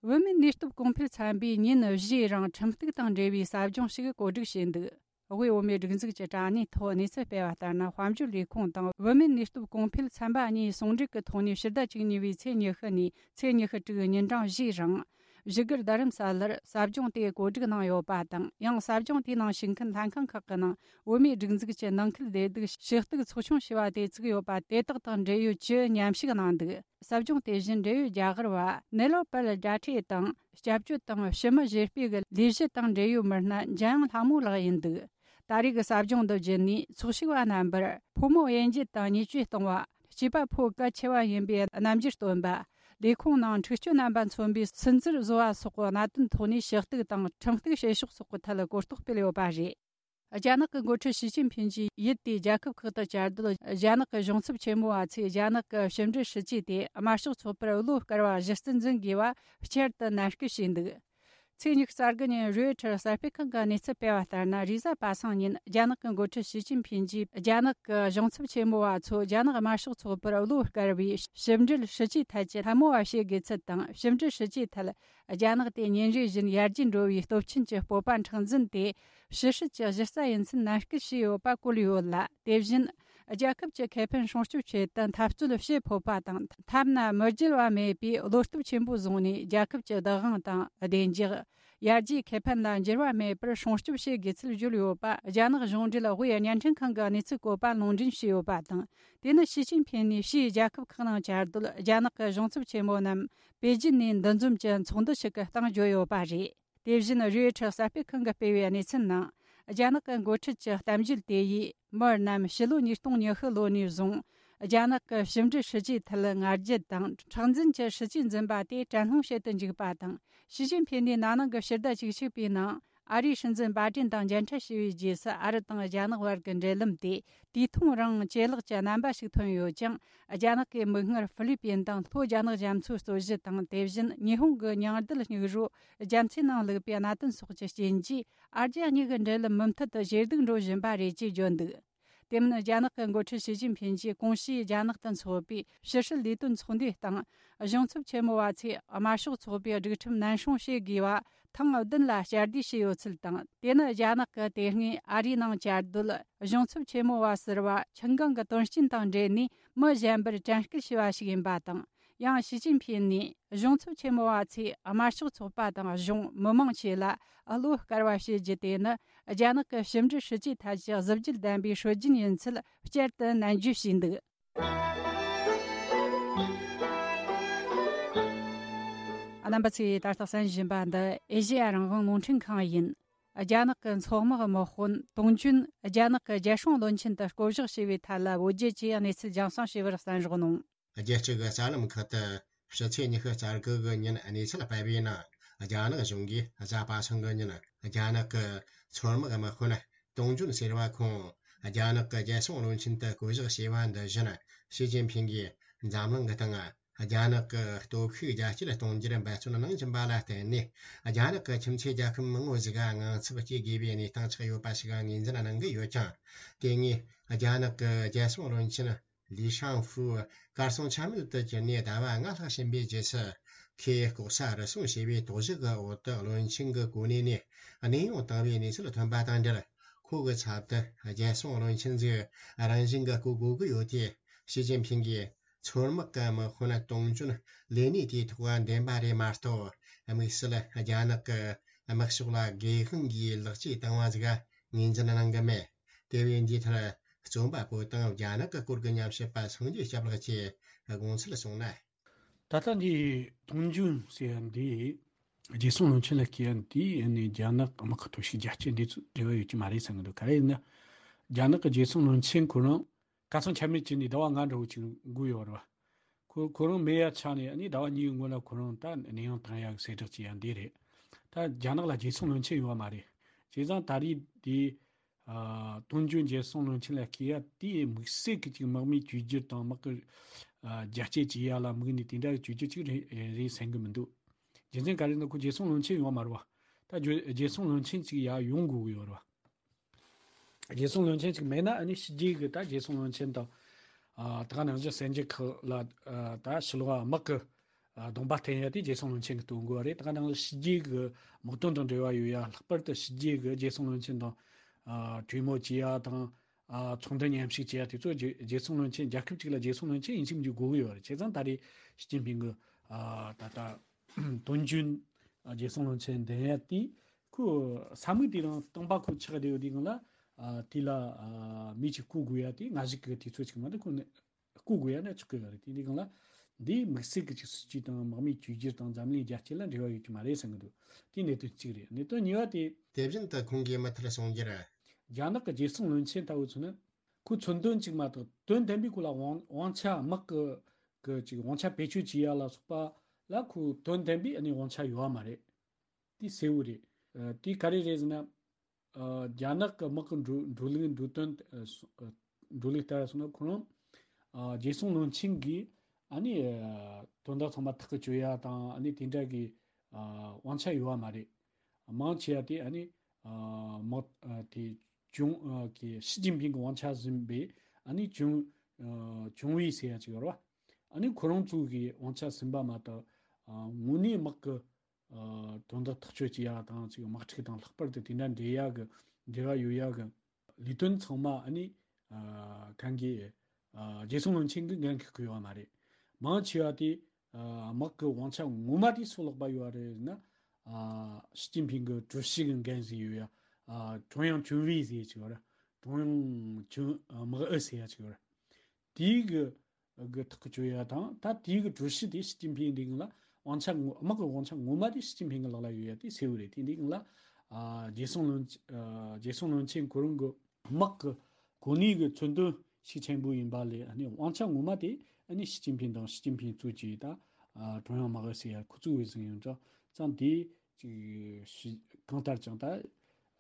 བོད་མིའི་གནས་སྐབས་གོང་འཕེལ་ཚན་པས་ཉིན་བཞིའི་རིང་ཁྲིམས་གཏུག་དང་འབྲེལ་བའི་ཟབ་སྦྱོང་ཞིག་གོ་སྒྲིག་བྱས་འདུག་དབུས་བོད་མིའི་སྒྲིག་འཛུགས་ཀྱི་དྲ་གནས་ཐོག་གནས་ཚུལ་སྤེལ་བ་ལྟར་ན། དཔལ་འབྱོར་ལས་ཁུངས་དང་བོད་མིའི་གནས་སྐབས་གོང་འཕེལ་ཚན་པ་གཉིས་ཟུང་འབྲེལ་གྱི་ཐོག་ནས་ཕྱི་ཟླ་བཅུ་གཉིས་པའི་ཚེས་ཉི་ཤུ་ནས་ཚེས་ཉི་ཤུ་དྲུག་ཉིན་གྲངས་བཞིའི་རིང་། བཞུགས་སྒར་རྡ་རམ་ས་ལར་ཟབ་སྦྱོང་དེ་གོ་སྒྲིག་གནང་ཡོད་པ་དང་། ཡང་ཟབ་སྦྱོང་དེའི་ནང་ཞུགས་མཁན་ལྷན་ཁང་ཁག་གི་ནང་བོད་མིའི་སྒྲིག་འཛུགས་ཀྱི་ནང་ཁུལ་བདེ་སྡུག་ཞུ་གཏུག་ཚོགས་ཆུང་ཞེས་པ་དེ་བཙུགས་ཡོད་པ་དེ་དག་དང་འབྲེལ་ཡོད་བཅུ་མཉམ་ཞུགས་གནང་འདུག་ཟབ་སྦྱོང་དེ་བཞིན་འབྲེལ་ཡོད་རྒྱ་གར་བ་ནེ་ལོ་པལ་ཌ་ཁྲེ་དང་། སྐྱབས་བཅོལ་དང་ཕྱི་མི་བཞེས་སྤེལ་གྱི་ལས་གཞི་དང་འབྲེལ་ཡོད་མི་སྣ་འཇམ་དབྱངས་ལྷ་མོ་ལགས་ཡིན་འདུག་ད་རེས་ཀྱི་ཟབ་སྦྱོང་འདི་བརྒྱུད་ནས་ཚོགས་ཞུགས་པ་རྣམ་པར་ཕོ་མོ་དབྱེ་འབྱེད་དང་བརྙས་བཅོས་གཏོང་བ། སྐྱེས་པ་ཕོ་གལ་ཆེ་བ་ཡིན་པའི་རྣམ་འགྱུར་སྟོན་པ། ལས་ཁུངས་ནང་འཁྲུག་སྤྱོད་རྣམ་པ་མཚོན་པའི་སུན་གཙེར་བཟོ་བ་སོགས་ཀྱི་གནད་དོན་ཐོག་ནས་ཞུ་གཏུག་དང་ཁྲིམས་གཏུག་བྱེད་ཕྱོགས་སོགས་ཀྱི་ཐད་གོ་རྟོགས་སྤེལ་ཡོད་པ་རེད། རྒྱ་ནག་གི་འགོ་ཁྲིད་ཞི་ཅིན་ཕིན་གྱིས་ཡུལ་དེའི་རྒྱལ་ཁབ་ཁག་ཏུ་བཅའ་སྡོད་རྒྱ་ནག་གི་གཞུང་ཚབ་ཆེན་མོ་བ་ཚོས། རྒྱ་ནག་གི་ཕྱི་འབྲེལ་སྲིད་ཇུས་དེ་དམར་ཤོག་ཚོགས་པར་བློ་དཀར་བ་གཞི་རྩར་འཛིན་དགོས་པ་བསྐྱར་དུ་ནན་སྐུལ་བྱས་འདུག་ཚེས་ཉི་ཤུ་རྩ་དགུ་ཉིན་རོའི་ཊར་གསར་སྤེལ་ཁང་གིས་གནས་ཚུལ་སྤེལ་བ་ལྟར་ན། རེས་གཟའ་པ་སངས་ཉིན་རྒྱ་ནག་གི་འགོ་ཁྲིད་ཞི་ཅིན་ཕིན་གྱིས་རྒྱ་ནག་གི་གཞུང་ཚབ་ཆེན་མོ་བ་ཚོ་རྒྱ་ནག་དམར་ཤོག་ཚོགས་པར་བློ་དཀར་བའི་ཕྱི་འབྲེལ་སྲིད་ཇུས་ཐད་ཀྱི་ལད་མོ་བ་བྱེད་དགོས་ཚུལ་དང་། ཕྱི་འབྲེལ་སྲིད་ཇུས་ཐད་རྒྱ་ནག་དེ་ཉིན་རེ་བཞིན་ཡར་རྒྱས་འགྲོ་བའི་སྟོབས་ཆེན་གྱི་སྤོབས་པ་མཁྲེགས་འཛིན་དེ་ཕྱི་སྲིད་ཀྱི་གཞི་རྩ་ཡིན་ཚུལ་ནན་སྐུལ་བྱས་ཡོད་པ་བཀོད་ཡོད་ལ། དེ་བཞིན་རྒྱལ་ཁབ་ཀྱི་ཁེ་ཕན་སྲུང་སྐྱོབ་ཆེད་དུ་འཐབ་རྩོད་བྱེད་ཕོད་པ་དང་། ཐབས་ན་མི་འགྱུར་བ་མེད་པའི་བློ་སྟོབས་ཆེན་པོ་བཟུང་ནས། རྒྱལ་ཁབ་ཀྱི་བདག་དབང་དང་བདེ་འཇགས། ཡར་རྒྱས་ཁེ་ཕན་ལ་འགྱུར་བ་མེད་པར་སྲུང་སྐྱོབ་བྱེད་དགོས་ཚུལ་བརྗོད་ཡོད་པ་རྒྱ་ནག་གཞུང་འབྲེལ་དབུས་བརྙན་འཕྲིན་ཁང་གི་གནས་ཚུལ་བཀོད་པ་ལུང་འདྲེན་བྱས་ཡོད་པ་དང་། དེ་ནི་ཞི་ཅིན་ཕིན་ནས་ཕྱིའི་རྒྱལ་ཁབ་ཁག་ནང་བཅའ་སྡོད་རྒྱ་ནག་གི་གཞུང་ཚབ་ཆེན་མོ་རྣམས་པེ་ཅིན་ནས་འདུ་འཛོམས་ཀྱི་ཚོགས་འདུ་ཞིག་གི་སྟེང་བརྗོད་ཡོད་པ་རེད། དེ་བཞིན་རོའི་ཊར་གསར་སྤེལ་ཁང་གིས་སྤེལ་བའི་གནས་ཚུལ་ནང་། རྒྱ་ནག་གི་འགོ་ཁྲིད་ཀྱི་གཏམ་བརྗོད་དེ་ཡིས་མི་རྣམས་ཕྱི་ལོ་ཉིས་སྟོང་ཉི་ཤུ་ལོ་ནས་བཟུང་རྒྱ་ནག་གི་ཕྱི་འབྲེལ་སྲིད་ཇུས་ཐད་ང་རྒྱལ་དང་མཁྲེགས་འཛིན་གྱི་སྲིད་ཇུས་འཛིན་པ་དེ་དྲན་སློང་བྱེད་དུ་འཇུག་པ་དང་། ཞི་ཅིན་ཕིན་ནས་ན་ནིང་གི་ཕྱི་ཟླ་བཅུ་གཅིག་པའི་ནང་ཨ་རིའི་སྲིད་འཛིན་བྷའི་ཏིན་དང་མཇལ་འཕྲད་བྱས་པའི་རྗེས་སུ། ཨ་རི་དང་རྒྱ་ནག་བར་གྱི་འབྲེལ་ལམ་དེ་དུས་ཐུང་རིང་ཇེ་ལེགས་ཀྱི་རྣམ་པ་ཞིག་ཐོན་ཡོད་ཅིང་། རྒྱ་ནག་གི་མིག་སྔར་ཧྥི་ལི་པིན་དང་ལྷོ་རྒྱ་ནག་རྒྱ་མཚོའི་རྩོད་གཞི་དང་། དེ་བཞིན་ཉི་ཧོང་གི་མྱང་རྡུལ་སྙིགས་རོ་རྒྱ་མཚོའི་ནང་བླུགས་པའི་གནད་དོན་སོགས་ཀྱི་རྐྱེན་གྱིས། ཨ་རྒྱ་གཉིས་ཀྱི་འབྲེལ་ལམ་མུ་མཐུད་དུ་ཇེ་སྡུག་འགྲོ་བཞིན་པ་རེད་ཅེས་བརྗོད་འདུག་དེ་མིན། རྒྱ་ནག་གི་འགོ་ཁྲིད་ཞི་ཅིན་ཕིན་གྱིས་གོང་ཞུས་རྒྱ་ནག་ཏུ་འཚོགས་པའི་ཕྱི་སྲིད་ལས་དོན་ཚོགས་འདུའི་སྟེང་། གཞུང་ཚབ་ཆེན་མོ་བ་ཚོས་དམར་ཤོག་ཚོགས་པའི་སྒྲིག་ཁྲིམས་ནན་སྲུང་བྱེད་དགོས་པ་ཐེངས་བདུན་ལ་བསྐྱར་ཟློས་བྱས་ཡོད་ཚུལ་དང་། དེ་ནི་རྒྱ་ནག་གི་དེ་སྔའི་ཨ་རིའི་ནང་བཅའ་སྡོད་གཞུང་ཚབ་ཆེན་མོ་བ་ཟུར་པ་ཆིན་ཀང་གི་དོན་རྐྱེན་དང་འབྲེལ་ནས་མི་གཞན་པར་དྲན་སྐུལ་བྱས་པ་ཞིག་ཡིན་པ་དང་། ཡང་ཞི་ཅིན་ཕིན་ནས་གཞུང་ཚབ་ཆེན་མོ་བ་ཚོས་དམར་ཤོག་ཚོགས་པ་དང་གཞུང་མི་མང་བཅས་ལ་བློ་དཀར་བ་བྱེད་རྒྱུ་དེ་ནི་རྒྱ་ནག་གི་ཕྱི་འབྲེལ་སྲིད་ཇུས་ཐད་ཀྱི་གཟི་བརྗིད་ལྡན་པའི་སྲོལ་རྒྱུན་ཡིན་ཚུལ་བསྐྱར་དུ་ནན་བརྗོད་བྱས་འདུག་རྣམ་པ་ཚོས་ད་ལྟ་གསན་བཞིན་པ་འདི་ཨེ་ཤེ་ཡ་རང་དབང་རླུང་འཕྲིན་ཁང་ཡིན། རྒྱ་ནག་གི་མཚོ་དམག་དམག་དཔོན་ཏུང་ཅུན་རྒྱ་ནག་གི་རྒྱལ་སྲུང་བློན་ཆེན་དུ་བསྐོ་གཞག་བྱས་པའི་ཐད་ལ་བོད་རྒྱ་བཅས་གནས་ཚུལ་རྒྱང་སྲིང་བྱས་པར་གསན་རོགས་གནང་། རྒྱལ་སྤྱི་གི་གསར་ལམ་ཁག་ཏུ་ཕྱི་ཚེས་ཉི་ཤུ་རྩ་དགུ་གི་ཉིན་གནས་ཚུལ་སྤེལ་བའི་ནང་། རྒྱ་ནག་གཞུང་གིས་གཟའ་པ་སངས་ཀྱི་ཉིན་རྒྱ་ནག་གི་མཚོ་དམག་དམག་དཔོན་ཏུང་ཅུན་ཟེར་བ་ཁོང་རྒྱ་ནག་གི་རྒྱལ་སྲུང་བློན་ཆེན་དུ་བསྐོ་གཞག་བྱས་པ་འདི་བཞིན། ཞི་ཅིན་ཕིང་གིས་འཛམ་གླིང་གི་སྟེང་རྒྱ་ནག་གི་སྟོབས་ཤུགས་རྒྱ་སྐྱེད་གཏོང་རྒྱུར་འབད་བརྩོན་གནང་བཞིན་པ་ལ་བརྟེན་ནས། རྒྱ་ནག་གི་ཁྱིམ་མཚེས་རྒྱལ་ཁབ་མང་བོ་ཞིག་ག་དངངས་འཚབ་སྐྱེ་དགོས་པའི་གནས་སྟངས་ཆགས་ཡོད་པ་ཞིག་ངོས་འཛིན་གནང་གི་ཡོད་ཀྱང་། དེ་སྔའི་རྒྱ་ནག་གི་རྒྱལ་སྲུང་བློན་ཆེན་ལི་ཤང་ཧྥུ་གར་སོང་ཆ་མེད་དུ་གྱུར་ནས་ཟླ་བ་ལྔ་ལྷག་ཕྱིན་པའི་རྗེས་སུ། ཁོས་ལྐོག་ཟ་རུལ་སུངས་བྱས་པའི་དོགས་གཞི་གི་འོག་ཏུ་བློན་ཆེན་གྱི་གོ་གནས་ནས་གནས་དབྱུང་བཏང་བའི་གནས་ཚུལ་ཐོན་པ་དང་འབྲེལ། ཁོ་གི་ཚབ་ཏུ་རྒྱལ་སྲུང་བློན་ཆེན་ཟིག་རང་བཞིན་གྱི་བསྐོ་དགོས་ཀྱི་ཡོད་དེ། ཞི་ཅིན་ཕིང་གིས་མཚོ་དམག་གི་དམག་དཔོན་ཏུང་ཅུན་ལས་གནས་དེའི་ཐོག་འདེམས་པ་རེད་མ་གཏོགས། དམིགས་བསལ་རྒྱ་ནག་གི་དམག་ཕྱོགས་ལ་སྒེར་དབང་གིས་ལེགས་སྐྱེས་བཏང་བ་ཟིག་ངོས་འཛིན་གནང་གི་མེད། དེ་བས་འདིའི་ཐད་རྩོམ་པ་པོ་དང་རྒྱ་ནག་གི་སྐོར་གྱི་ཉམས་ཞིབ་པ་སངས་རྒྱས་སྐྱབས་ལགས་ཀྱིས་དགོངས་ཚུལ་གསུངས་ན། ད་ལྟ་འདི་ཏུང་ཅུན་ཟེར་ཡ་འདི་རྒྱལ་སྲུང་བློན་ཆེན་ལ་བསྐོས་ཡ་འདི་ནི་རྒྱ་ནག་དམག་གི་སྟོབས་ཤུགས་རྒྱ་སྐྱེད་འདི་ཚོ་འབྲེལ་བ་ཡོད་ཀྱི་མ་རེད་བསམ་གྱི་འདུག་ག་རེ་ཡིན་ན། རྒྱ་ནག་གི་རྒྱལ་སྲུང་བློན་ཆེན་ཁོ་རང་གར་སོང་ཆ་མེད་བྱས་ནས་ཟླ་བ་ལྔ་འདྲ་བོ་ཅིག་འགོར་ཡོད་རེད་བ། ཁོ་ཁོ་རང་མེད་ཡ་ཆགས་ནས་ཨ་ནི་ཟླ་བ་གཉིས་སྔོན་ལ་ཁོ་རང་ད་གནས་དབྱུང་བཏང་ཡ་གི་གསལ་བསྒྲགས་བྱས་ཡ་འདི་རེད། ད་རྒྱ་ནག་ལ་རྒྱལ་སྲུང་བློན་ཆེན་ཡོད་བ་མ་རེད། བྱས་ཙང་ད་རེས་འདི། ཨ། ཏུང་ཅུན་རྒྱལ་སྲུང་བློན་ཆེན་ལ་བསྐོས་ཡ་དེ་དམིགས་བསལ་གྱི་ཅིག་དམག་མིའི་བཅོས་བསྒྱུར་དང་དམག་གི། ཨ། རྒྱ་སྐྱེད་བྱེད་ཡ་ལ་དམིགས་ནས་དེ་འདྲ་གི་བཅོས་བསྒྱུར་ཅིག་རེད་རེད་བསམ་གི་མི་འདུག་རྒྱུ་མཚན་ག་རེ་ན་ཁོ་རྒྱལ་སྲུང་བློན་ཆེན་ཡོད་མ་རེད་བ། ད་རྒྱུ་རྒྱལ་སྲུང་བློན་ཆེན་ཅིག་ཡ་ཡོང་དགོས་གི་ཡོད་རེད་བ། རྒྱལ་སྲུང་བློན་ཆེན་ཅིག་མེད་ན་ཨ་ནི་ཕྱི་རྒྱལ་གི་ད་རྒྱལ་སྲུང་བློན་ཆེན་དང་། ཨ། ད་ག་ནང་བཞིན་གསར་འགྱུར་ཁག་ལ། ཨ། ད་ཕྱི་ལོགས་དམག་གི། ཨ། གདོང་པ་སྟོན་ཡ་དེ་རྒྱལ་སྲུང་བློན་ཆེན་གྱིས་སྟོན་དགོས་པ་རེད། ད་ག་ནང་བཞིན་ཕྱི་རྒྱལ་གྱི་དམག་དོན་དང་འབྲེལ་བ་ཡོད་ཡ། ལྷག་པར་དུ་ཕྱི་རྒྱལ་གྱི་རྒྱལ་སྲུང་བློན་ཆེན་དང་། ཨ། གྲོས་མོལ་བྱེད་ཡ་དང་། ཨ། ཚོགས་འདུ་མཉམ་ཞུགས་བྱེད་ཡ་དེ་ཚོ་རྒྱལ་རྒྱལ་སྲུང་བློན་ཆེན། རྒྱལ་ཁབ་ཅིག་ལ་རྒྱལ་སྲུང་བློན་ཆེན་ཡིན་གཅིག་མིན་གཅིག་དགོས་ཀྱི་ཡོད་རེད། བྱས་ཙང་ད་རེས་ཞི་ཅིན་ཕིང་གིས། ཨ། ད་ལྟ་ཏུང་ཅུན་རྒྱལ་སྲུང་བློན་ཆེན་འདེམས་ཡ་དེ་ཁོ་ས་མིག་དེ་རང་སྟོང་པ་ཁོ་ཆགས་བསྡད་ཡོད་དུས་སྒང་ལ། ཨ། དེ་ལ། ཨ། མི་གཅིག་བསྐོ་དགོས་ཡ་དེ་སྔ་གཞུག་གི་དུས་ཚོད་ཅིག་མ་གཏོགས་ཁོ་ནི། བསྐོ་དགོས་ཡ་ན་ཆོག་གི་ཡོད་རེད། དེ་འདྲའི་སྒང་ལ་འདིའི་དམིགས་བསལ་གྱི་ཅིག་སྲིད་ཇུས་དང་དམག་མིའི་བཅོས་བསྒྱུར་དང་འཛམ་གླིང་རྒྱ་སྐྱེད་ལ་འབྲེལ་བ་ཡོད་ཀྱི་མ་རེད་བསམ་གྱི་འདུག་དེ་གནད་དོན་གཅིག་རེད། གནད་དོན་གཉིས་པ་དེ། དེ་བཞིན་དུ་ཁོང་གིས་མུ་མཐུད་གསུངས་རྒྱུར། རྒྱ་ནག་གི་རྒྱལ་སྲུང་བློན་ཆེན་ལྟ་བུ་ཚོ་ནི་ཁོའི་མཚོན་དོན་གཅིག་མ་གཏོགས་དོན་ལྡན་པའི་སྐོར་ལ་དབང་དབང་ཆ། དམག་གི་གི་ཅིག་དབང་ཆ་བེད་སྤྱོད་བྱེད་ཡ་ལ་སོགས་པ་ལ་ཁོའི་དོན་ལྡན་པའི་ཨ་ནི་དབང་ཆ་ཡོད་པ་མ་རེད། དེ་གསལ་བོ་རེད། ཨ། དེ་ག་རེ་རེད་ཟེར་ན། ཨ། རྒྱ་ནག་གི་དམག་གི་འགྲོ་འགྲོ་ལུགས་འགྲོ་དོན། ཨ། སོ་ཨ། འགྲོ་ལུགས་ལྟར་སོང་ན་ཁོ་རང་། ཨ། རྒྱལ་སྲུང་བློན་ཆེན་གྱིས་ཨ་ནི། ཨ། དོན་དག་ཚང་མ་ཐག་གིས་གཅོད་ཡ་དང་ཨ་ནི་དེ་འདྲ་གི། ཨ། དབང་ཆ་ཡོད་པ་མ་རེད། མང་ཆེ་བ་དེ་ཨ་ནི། ཨ། དམག་ཨ། དེ་ཅུང་། ཨ། གི་ཞི་ཅིན་ཕིང་གི་དབང་ཆ་ཟིན་པའི་ཨ་ནི་ཅུང་། ཨ། ཅུང་ཝུའེ་ཟེར་ཡ་ཅིག་ཡོད་རེད་བ། ཨ་ནི་ཁོ་རང་ཚོ་གི་དབང་ཆ་ཟིན་པ་མ་གཏོགས། ཨ། དངོས་གནས་དམག་གི། ཨ། དོན་དག་ཐག་གཅོད་བྱེད་ཡ་དང་ཅིག་དམག་འཁྲུག་དང་ལྷག་པར་དུ་དེ་འདྲ་འབྲེལ་ཡ་གི་འབྲེལ་བ་ཡོད་ཡ་གི་ལས་དོན་ཚང་མ་ཨ་ནི། ཨ། གང་གི། ཨ། རྒྱལ་སྲུང་བློན་ཆེན་གྱིས་འགན་འཁུར་གི་ཡོད་མ་རེད། མང་ཆེ་བ་དེ། ཨ། དམག་གི་དབང་ཆ་ངོ་མ་དེ་སུ་ལག་པ་ཡོད་རེད་ཟེར་ན། ཨ། ཞི་ཅིན་ཕིང་གི་ཀྲུའུ་ཞི་གི་འགན་ཟིག་ཡོད་ཡ། ཨ། ཀྲུང་དབྱང་ཅུང་ཝུའེ་ཟེར་ཡ་ཅིག་ཡོད་རེད། ཀྲུང་དབྱང་ཅུང་། ཨ། དམག་ཨུ་ཟེར་ཡ་ཅིག་ཡོད་རེད། དེའི་གི་གི་ཐག་གཅོད་ཡ་དང་། ད་དེའི་གི་ཀྲུའུ་ཞི་དེ་ཞི་ཅིན་ཕིང་འདི་གི་ལ་དབང་ཆ་ངོ་། དམག་གི་དབང་ཆ་ངོ་མ་དེ་ཞི་ཅིན་ཕིང་གི་ལག་ལ་ཡོད་ཡ་དེ་གསལ་བོ་རེད། དེ་འདི་གི་ལ། ཨ། རྒྱལ་སྲུང་བློན། ཨ། རྒྱལ་སྲུང་བློན་ཆེན་ཁོ་རང་གི་དམག་གི་གོ་གནས་གི་མཚོན་དོན་ཤུགས་ཆེན་པོ་ཡིན་པ་ལས་ཨ་ནི་དབང་ཆ་ངོ་མ་དེ་ཨ་ནི་ཞི་ཅིན་ཕིང་དང་། ཞི་ཅིན་ཕིང་གཙོས་ཀྱི་ད། ཨ། ཀྲུང་དབྱང་དམག་ཨུ་ཟེར་ཡ་ཁོ་ཚོ་བས་ཟིན་ཡོད་འདྲ་ཙང་། དེ་ཅིག་ཞི། གང་ལྟར་ཀྱང་ད།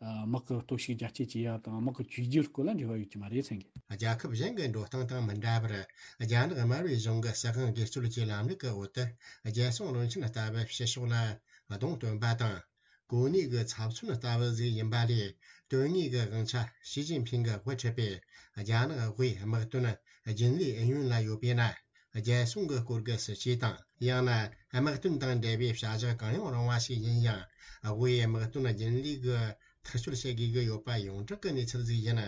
ཨ། དམག་གི་སྟོབས་ཤུགས་རྒྱ་སྐྱེད་བྱེད་ཡ་དང་དམག་གི་བཅོས་བསྒྱུར་སྐོར་ལ་འབྲེལ་བ་ཡོད་ཀྱི་མ་རེད་བསམ་གི། རྒྱལ་ཁབ་གཞན་གྱི་འགྲོ་སྟངས་དང་མི་འདྲ་བར། རྒྱ་ནག་དམར་པོའི་གཞུང་གི་སྲིད་དབང་སྒེར་གཅོད་ཀྱི་ལམ་ལུགས་ཀྱི་འོག་ཏུ། རྒྱལ་སྲུང་བློན་ཆེན་ལྟ་བུ་ཕྱི་ཕྱོགས་ལ་གདོང་སྟོན་པ་དང་། གོ་གནས་ཀྱི་ཚབ་མཚོན་ལྟ་བུ་ཟིག་ཡིན་པ་ལས། དོན་དངོས་ཀྱི་དབང་ཆ་ཞི་ཅིན་ཕིང་གིས་དབུ་ཁྲིད་པའི་རྒྱ་ནག་དབུས་དམག་དོན་རྒྱུན་ལས་ཨུ་ཡོན་ལ་ཡོད་པས་ན། རྒྱལ་སྲུང་གི་སྐོར་གྱི་སྲིད་ཇུས་དང་། ཡང་ན་དམག་དོན་དང་འབྲེལ་བའི་བྱ་གཞག་གང་ཡང་རུང་བ་ཞིག་ཡིན་ཡང་། དབུས་དམག་དོན་རྒྱུན་ལས་ཀྱིས་ཐག་གཅོད་བྱེད་དགོས་ཀྱི་ཡོད་པ་ཡོངས་གྲགས་ཀྱི་གནས་ཚུལ་ཞིག་ཡིན།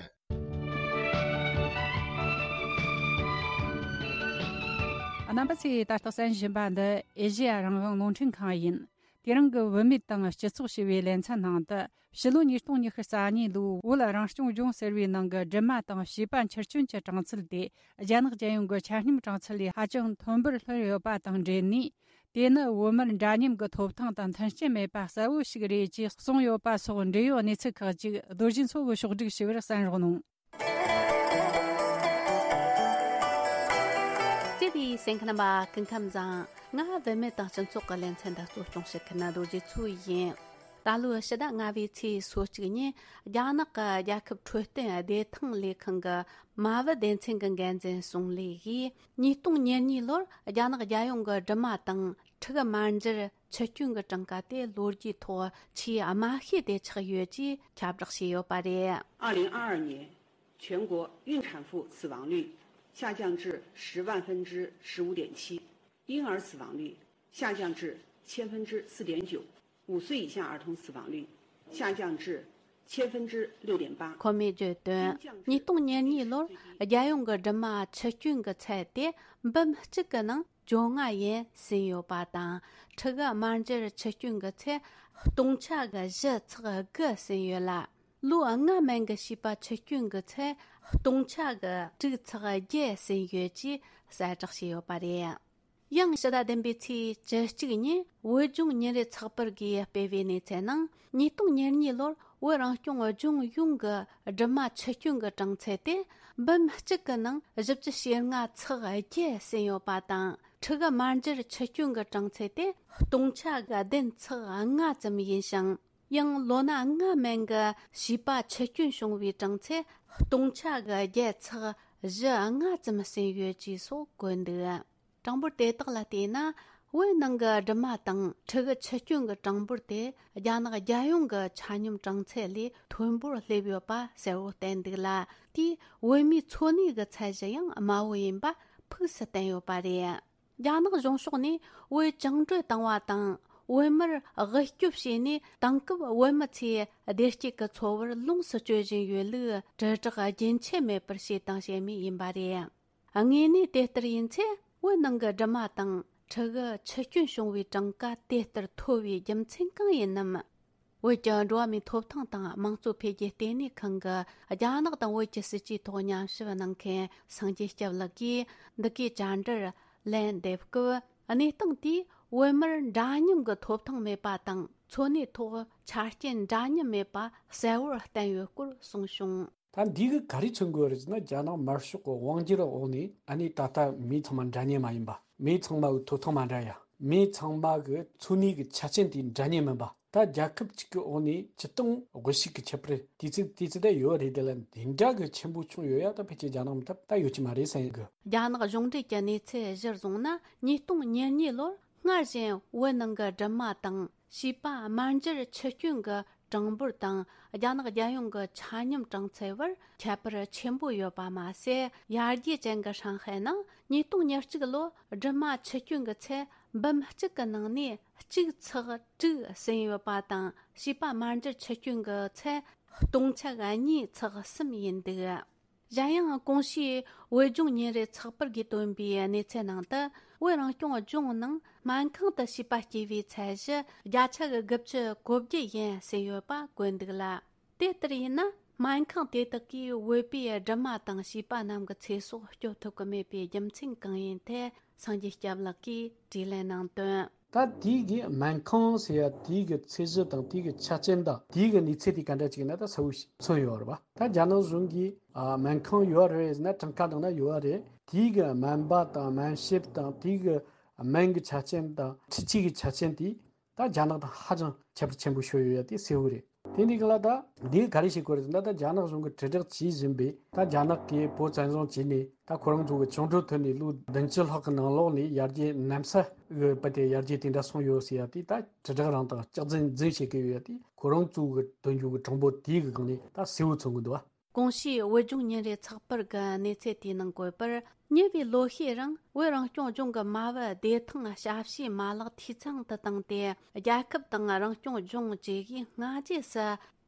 རྣམ་པ་ཚོས་ད་ལྟ་གསན་བཞིན་པ་འདི་ཨེ་ཤེ་ཡ་རང་དབང་རླུང་འཕྲིན་ཁང་ཡིན། དེ་རིང་གི་བུད་མེད་དང་སྤྱི་ཚོགས་ཞེས་པའི་ལེ་ཚན་ནང་དུ། ཕྱི་ལོ་ཉིས་སྟོང་ཉི་ཤུ་རྩ་གཉིས་ལོའི་བོད་རང་སྐྱོང་ལྗོངས་ཟེར་བའི་ནང་གི་སྦྲིད་མ་དང་བྱིས་པ་འཁྱེར་སྐྱོན་གྱི་གྲངས་ཚད་དེ། རྒྱ་ནག་རྒྱལ་ཡོངས་ཀྱི་ཆ་སྙོམས་གྲངས་ཚད་ལས་ཧ་ཅང་མཐོན་པོར་ལྷོད་ཡོད་པ་དང་འབྲེལ་ནས། དེ་ནི་བོད་མིར་འདྲ་མཉམ་གྱི་ཐོབ་ཐང་དང་མཐུན་རྐྱེན་མེད་པ་གསལ་བོ་ཞིག་རེད་ཅེས་གསུངས་ཡོད་པ་སོགས་འབྲེལ་ཡོད་གནས་ཚུལ་ཁག་ཅིག་རྡོ་རྗེ་མཚོ་གིས་ཕྱོགས་བསྒྲིགས་ཞུས་པར་གསན་རོགས་གནང་། བརྩེ་བའི་གསན་མཁན་རྣམ་པ་སྐུ་ཁམས་བཟང་། ང་བུད་མེད་དང་སྤྱི་ཚོགས་ཀྱི་ལེ་ཚན་འདི་གཙོ་སྐྱོང་བྱེད་མཁན་རྡོ་རྗེ་མཚོ་ཡིན། ད་ལོའི་ཕྱི་ཟླ་ལྔ་པའི་ཚེས་སོ་གཅིག་ཉིན་རྒྱ་ནག་གི་རྒྱལ་ཁབ་འཕྲོད་བསྟེན་བདེ་ཐང་ལས་ཁང་གི་མ་བུ་སྡེ་ཚན་གྱི་འགན་འཛིན་སུང་ལི་ཡིས་ཉིས་སྟོང་ཉེར་གཉིས་ལོར་རྒྱ་ནག་རྒྱལ་ཡོངས་ཀྱི་སྦྲུམ་མ་དང་ཕྲུ་གུ་མ་འཇར་འཆི་སྐྱོན་གྱི་གྲངས་ཀ་དེ་ལོ་རྒྱུས་ཐོག་ཆེས་དམའ་ཤོས་དེ་ཆགས་ཡོད་ཅེས་ཁྱབ་བསྒྲགས་བྱས་ཡོད་པ་རེད། 二零二二年全国孕产妇死亡率下降至十万分之十五点七，婴儿死亡率下降至千分之四点九，五岁以下儿童死亡率下降至千分之六点八。 ཁོ་མོས་བརྗོད་དོན། ཉིས་སྟོང་ཉེར་གཉིས་ལོར་རྒྱལ་ཡོངས་ཀྱི་སྦྲུམ་མ་འཆི་སྐྱོན་གྱི་ཚད་དེ་འབུམ་གཅིག་གི་ནང་བཅོ་ལྔ་ཡན་ཟིན་ཡོད་པ་དང་། ཕྲུ་གུ་དམར་འབྱར་འཆི་སྐྱོན་གྱི་ཚད་སྟོང་ཆ་གི་བཞི་ཚེག་དགུ་ཟིན་ཡོད་ལ། ལོ་ལྔ་མན་གྱི་བྱིས་པ་འཆི་སྐྱོན་གྱི་ཚད་སྟོང་ཆ་གི་དྲུག་ཚེག་བརྒྱད་ཟིན་ཡོད་ཅེས་གསལ་བསྒྲགས་བྱས་ཡོད་པ་རེད། ཡང་ཕྱི་ཟླ་བདུན་པའི་ཚེས་བཅུ་གཅིག་ཉིན་བོད་ལྗོངས་ཉིན་རེའི་ཚགས་པར་གྱིས་སྤེལ་བའི་གནས་ཚུལ་ནང་། ཉིས་སྟོང་ཉེར་གཉིས་ལོར་བོད་རང་སྐྱོང་ལྗོངས་ཡོངས་ཀྱི་སྦྲུམ་མ་འཆི་སྐྱོན་གྱི་གྲངས་ཚད་དེ་འབུམ་གཅིག་གི་ནང་བཞི་བཅུ་ཞེ་ལྔ་ཚེག་བརྒྱད་ཟིན་ཡོད་པ་དང་། ཕྲུ་གུ་དམར་འབྱར་འཆི་སྐྱོན་གྱི་གྲངས་ཚད་དེ་སྟོང་ཆ་གི་བདུན་ཚེག་ལྔ་ཙམ་ཡིན་ཞིང་། ཡང་ལོ་ན་ལྔ་མན་གྱི་བྱིས་པ་འཆི་སྐྱོན་བྱུང་བའི་གྲངས་ཚད་སྟོང་ཆ་གི་བརྒྱད་ཚེག་བཞི་ལྔ་ཙམ་ཟིན་ཡོད་ཅེས་སོགས་བཀོད་འདུག། གྲངས་འབོར་དེ་དག་ལ་བལྟས་ན། བོད་ནང་གི་སྦྲུམ་མ་དང་ཕྲུ་གུ་འཆི་སྐྱོན་གྱི་གྲངས་འབོར་དེ་རྒྱ་ནག་རྒྱལ་ཡོངས་ཀྱི་ཆ་སྙོམས་གྲངས་ཚད་ལས་མཐོན་པོར་སླེབས་ཡོད་པ་གསལ་བོ་བསྟན་འདུག་ལ། དེས་བོད་མིའི་འཚོ་གནས་ཀྱི་ཚད་གཞི་ཡང་དམའ་བོ་ཡིན་པ་ཕུགས་སུ་བསྟན་ཡོད་པ་རེད། རྒྱ་ནག་གཞུང་ཕྱོགས་ནས་བོད་བཅིངས་འགྲོལ་བཏང་བ་དང་། བོད་མིར་དབུལ་སྐྱོབ་བྱས་ནས་དེང་སྐབས་བོད་མི་ཚོས་བདེ་སྐྱིད་ཀྱི་འཚོ་བར་ལོངས་སུ་སྤྱོད་བཞིན་ཡོད་ལུགས་དྲིལ་བསྒྲགས་རྒྱུན་ཆད་མེད་པར་བྱས་དང་བྱེད་མུས་ཡིན་པ་རེད། དངོས་གནས་དེ་ལྟར་ཡིན་ཚེ། བོད་ནང་གི་སྦྲུམ་མ་དང་ཕྲུ་གུ་འཆི་སྐྱོན་བྱུང་བའི་གྲངས་ཀ་དེ་ལྟར་མཐོ་བའི་རྒྱུ་མཚན་གང་ཡིན་ནམ། བོད་ཀྱི་འགྲོ་བ་མིའི་ཐོབ་ཐང་དང་དམངས་གཙོ་འཕེལ་རྒྱས་ལྟེ་གནས་ཁང་གི་རྒྱ་ནག་དང་བོད་ཀྱི་སྲིད་ཇུས་ཐོག་ཉམས་ཞིབ་གནང་མཁན་སངས་རྒྱས་སྐྱབས་ལགས་ཀྱིས། འདི་གའི་བཅར་འདྲིར་ལན་འདེབས་སྐབས། གནས་སྟངས་དེས་བོད་མིར་འདྲ་མཉམ་གྱི་ཐོབ་ཐང་མེད་པ་དང་། འཚོ་གནས་ཐོག་ཆ་རྐྱེན་འདྲ་མཉམ་མེད་པ་གསལ་བོར་བསྟན་ཡོད་སྐོར་གསུངས་བྱུང་། ད་འདི་གིས་ག་རེ་མཚོན་གྱི་ཡོད་རེད་ཟེར་ན། རྒྱ་ནག་དམར་ཤོག་གི་དབང་སྒྱུར་འོག་ནས། ཨ་ནི་ད་ལྟ་མི་ཚང་མ་འདྲ་མཉམ་མ་ཡིན་པ། མི་ཚང་མ་གི་ཐོབ་ཐང་མ་འདྲ་ཡ། མི་ཚང་མ་གི་འཚོ་གནས་ཀྱི་ཆ་རྐྱེན་དེ་འདྲ་མཉམ་མིན་པ། ད་རྒྱལ་ཁབ་གཅིག་གི་འོག་ནས་སྤྱིར་བཏང་དབུལ་ཕྱུག་གི་ཁྱད་པར་དེ་ཚོ་དེ་ཚོ་ད་ཡོད་རེད། དེ་ལ་འདི་འདྲ་གི་ཆེན་པོ་བྱུང་ཡོད་ཡ། ད་ཕལ་ཆེར་རྒྱ་ནག་མི་ཐབས་ད་ཡོད་ཀྱི་མ་རེད་བསམ་གི། རྒྱ་ནག་གཞུང་འབྲེལ་གྱི་གནས་ཚུལ་གཞིར་བཟུང་ན། ཉིས་སྟོང་ཉེར་གཉིས་ལོར་སྔར་བཞིན་བོད་ནང་གི་སྦྲུམ་མ་དང་བྱིས་པ་དམར་འབྱར་འཆི་སྐྱོན་གྱི་གྲངས་འབོར་དང་། རྒྱ་ནག་རྒྱལ་ཡོངས་ཀྱི་ཆ་སྙོམས་གྲངས་ཚད་བར་ཁྱད་པར་ཆེན་པོ་ཡོད་པ་མ་ཟད། ཡར་རྒྱས་ཅན་གྱི་ཧྲང་ཧའེ་ནང་ཉིས་སྟོང་ཉེར་གཅིག་ལོ་སྦྲུམ་མ་འཆི་སྐྱོན་གྱི་ཚད་འབུམ་གཅིག་གི་ནང་ནས་གཅིག་ཚེག་དྲུག་ཟིན་ཡོད་པ་དང་། བྱིས་པ་དམར་འབྱར་འཆི་སྐྱོན་གྱི་ཚད་སྟོང་ཆ་གཉིས་ཚེག་གསུམ་ཡིན་འདུག། གཞན་ཡང་གོང་ཞུས་བོད་ལྗོངས་ཉིན་རེའི་ཚགས་པར་གྱིས་བཏོན་པའི་གནས་ཚུལ་ནང་དུ། བོད་རང་སྐྱོང་ལྗོངས་ནང་སྨན་ཁང་དུ་བྱིས་པ་སྐྱེ་བའི་ཚད་གཞི་བརྒྱ་ཆ་གི་དགུ་བཅུ་གོ་བརྒྱད་ཡན་ཟིན་ཡོད་པ་བཀོད་འདུག་ལ། དེ་ལྟར་ཡིན་ན། སྨན་ཁང་དེ་དག་གིས་བོད་པའི་སྦྲུམ་མ་དང་བྱིས་པ་རྣམས་ཀྱི་ཚེ་སྲོག་སྐྱོབ་ཐུབ་ཀྱི་མེད་པའི་རྒྱུ་མཚན་གང་ཡིན་ཐད། སངས་རྒྱས་སྐྱབས་ལགས་ཀྱིས་དྲིས་ལན་གནང་དོན། ད་དེའི་གི་སྨན་ཁང་ཟེར་ཡ་དེའི་གི་ཚད་གཞི་དང་། དེའི་གི་ཆ་རྐྱེན་དང་། དེའི་གི་གནས་ཚད་དེ་ག་འདྲ་ཅིག་ཡིན་ན་ད་གསལ་བོ་ཞིག་མཚོན་ཡོད་རེད་པ། ད་རྒྱ་ནག་གཞུང་གིས་ཨ་སྨན་ཁང་ཡོད་རེད་ཟེར་ན། གྲངས་ཀ་ནང་ན་ཡོད་རེད། དེའི་གི་སྨན་པ་དང་སྨན་ཞབས་དང་། དེའི་གི་སྨན་གི་ཆ་རྐྱེན་དང་འཕྲུལ་ཆས་གི་ཆ་རྐྱེན་དེ། ད་རྒྱ་ནག་དང་ཧ་ཅང་ཁྱད་པར་ཆེན་པོ་ཤོར་ཡོད་ཡ་དེ་གསལ་བོ་རེད། དེ་འདི་ག་ལ་ད་འདི་ག་རེ་བྱེད་དགོས་རེད་ཟེར་ན། ད་རྒྱ་ནག་གཞུང་གིས་དྲིལ་བསྒྲགས་བྱེད་བཞིན་པའི། ད་རྒྱ་ནག་གིས་བོད་བཙན་བཟུང་བྱས་ནས། ད་ཁོ་རང་ཚོ་གི་བཅིངས་འགྲོལ་ཐོན་ནས་ལོ་བདུན་ཅུ་ལྷག་གི་ནང་ལོགས་ནས་ཡར་རྒྱས་གནམ་ས་གི་བར་དེ་ཡར་རྒྱས་དེ་འདྲ་སོང་ཡོད་ཟེར་ཡ་དེ། ད་དྲིལ་བསྒྲགས་རང་དང་སྐྱག་རྫུན་རྫུན་བྱེད་ཀྱི་ཡོད་ཡ་དེ། ཁོ་རང་ཚོ་གི་དོན་གཅོད་ཀྱི་གྲངས་འབོར་དེའི་གི་སྒང་ནས་ད་གསལ་བོ་མཚོན་གི་འདུག་བ། གོང་ཞུས་བོད་ལྗོངས་ཉིན་རེའི་ཚགས་པར་གྱི་གནས་ཚུལ་དེའི་ནང་བཀོད་པར། ཉེ་བའི་ལོ་ཤས་རིང་བོད་རང་སྐྱོང་ལྗོངས་ཀྱི་མ་བུ་བདེ་ཐང་ཞབས་ཞུའི་མ་ལག་འཐུས་ཚང་དུ་བཏང་སྟེ། རྒྱལ་ཁབ་དང་རང་སྐྱོང་ལྗོངས་བཅས་ཀྱིས་སྔ་རྗེས་སུ་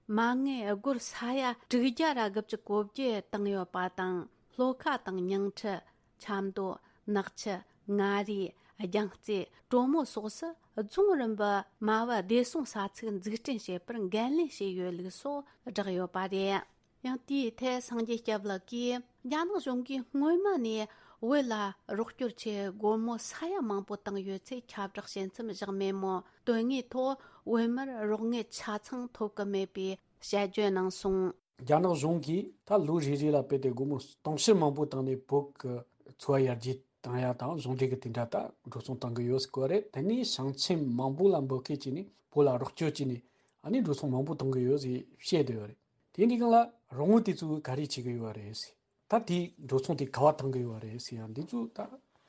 མ་དངུལ་སྒོར་ས་ཡ་དྲུག་བརྒྱ་ར་དགུ་བཅུ་གོ་བརྒྱད་བཏང་ཡོད་པ་དང་། ལྷོ་ཁ་དང་ཉིང་ཁྲི། ཆབ་མདོ། ནག་ཆུ། མངའ་རིས། རྒྱལ་རྩེ། གྲོ་མོ་སོགས་སུ་རྫོང་རིམ་པའི་མ་བུ་བདེ་སྲུང་ས་ཚིགས་འཛུགས་སྐྲུན་བྱེད་པར་འགན་ལེན་བྱས་ཡོད་ལུགས་སོགས་བསྒྲགས་ཡོད་པ་རེད། ཡང་དེའི་ཐད་སངས་རྒྱས་སྐྱབས་ལགས་ཀྱིས། རྒྱ་ནག་གཞུང་གིས་སྔོན་མ་ནས་ བོད་ལ་རོགས་སྐྱོར་ཆེད་སྒོར་མོ་ས་ཡ་མང་པོ་བཏང་ཡོད་ཚེ་ཁྱབ་བསྒྲགས་བྱེད་མཚམས་བཞག་མེད་མོད། དོན་དངོས་ཐོག་བོད་མིར་རོགས་དངུལ་ཆ་ཚང་ཐོབ་ཀྱི་མེད་པའི་དཔྱད་བརྗོད་གནང་སོང་། རྒྱ་ནག་གཞུང་གིས་ད་ལོ་རེ་རེ་ལ་བོད་དེ་སྒོར་མོ་སྟོང་ཕྲག་མང་པོ་བཏང་ནས་བོད་ཀྱི་འཚོ་བ་ཡར་རྒྱས་བཏང་ཡ་དང་གཞུང་འབྲེལ་གྱི་དེ་འདྲ་ད་འགྲོ་སོང་བཏང་གི་ཡོད་ཟེར་གོ་རེད། དེ་ནས་ཞིང་ཆེན་མང་པོ་ལ་འབོད་སྐུལ་བྱས་ནས་བོད་ལ་རོགས་སྐྱོར་བྱས་ནས་ཨ་ནི་འགྲོ་སོང་མང་པོ་བཏང་གི་ཡོད་ཟེར་བཤད་བསྡད་ཡོད་རེད། དེ་འདྲའི་སྒང་ལ་རོགས་དངུལ་དེ་ཚོ་ག་རེ་བྱེད་ཀྱི་ཡོད་རེད་ཟེར། ད་དེའི་འགྲོ་སོང་དེ་ག་བ་བཏང་གི་ཡོད་རེད་ཟེར་ཡང་འདི་ཚོ་ད་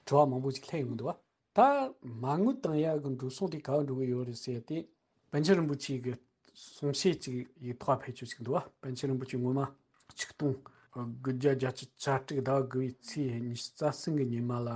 དྲི་བ་མང་པོ་ཞིག་སླེབས་ཡོང་གི་འདུག་བ། ད་མ་དངུལ་བཏང་ཡག་གི་འགྲོ་སོང་དེ་ག་བ་འགྲོ་གི་ཡོད་རེད་ཟེར་ཏེ། པཎ་ཆེན་རིན་པོ་ཆེ་གི་གསུང་བཤད་ཅིག་ཡིག་ཐོག་ཕེབས་ཆོག་ཅིག་འདུག་བ། པཎ་ཆེན་རིན་པོ་ཆེ་སྔོན་མ་ཆིག་སྟོང་དགུ་བརྒྱ་བརྒྱད་ཅུ་གྱ་དྲུག་ཟླ་བ་དགུ་བའི་ཚེས་ཉི་ཤུ་རྩ་གསུམ་གི་ཉི་མ་ལ་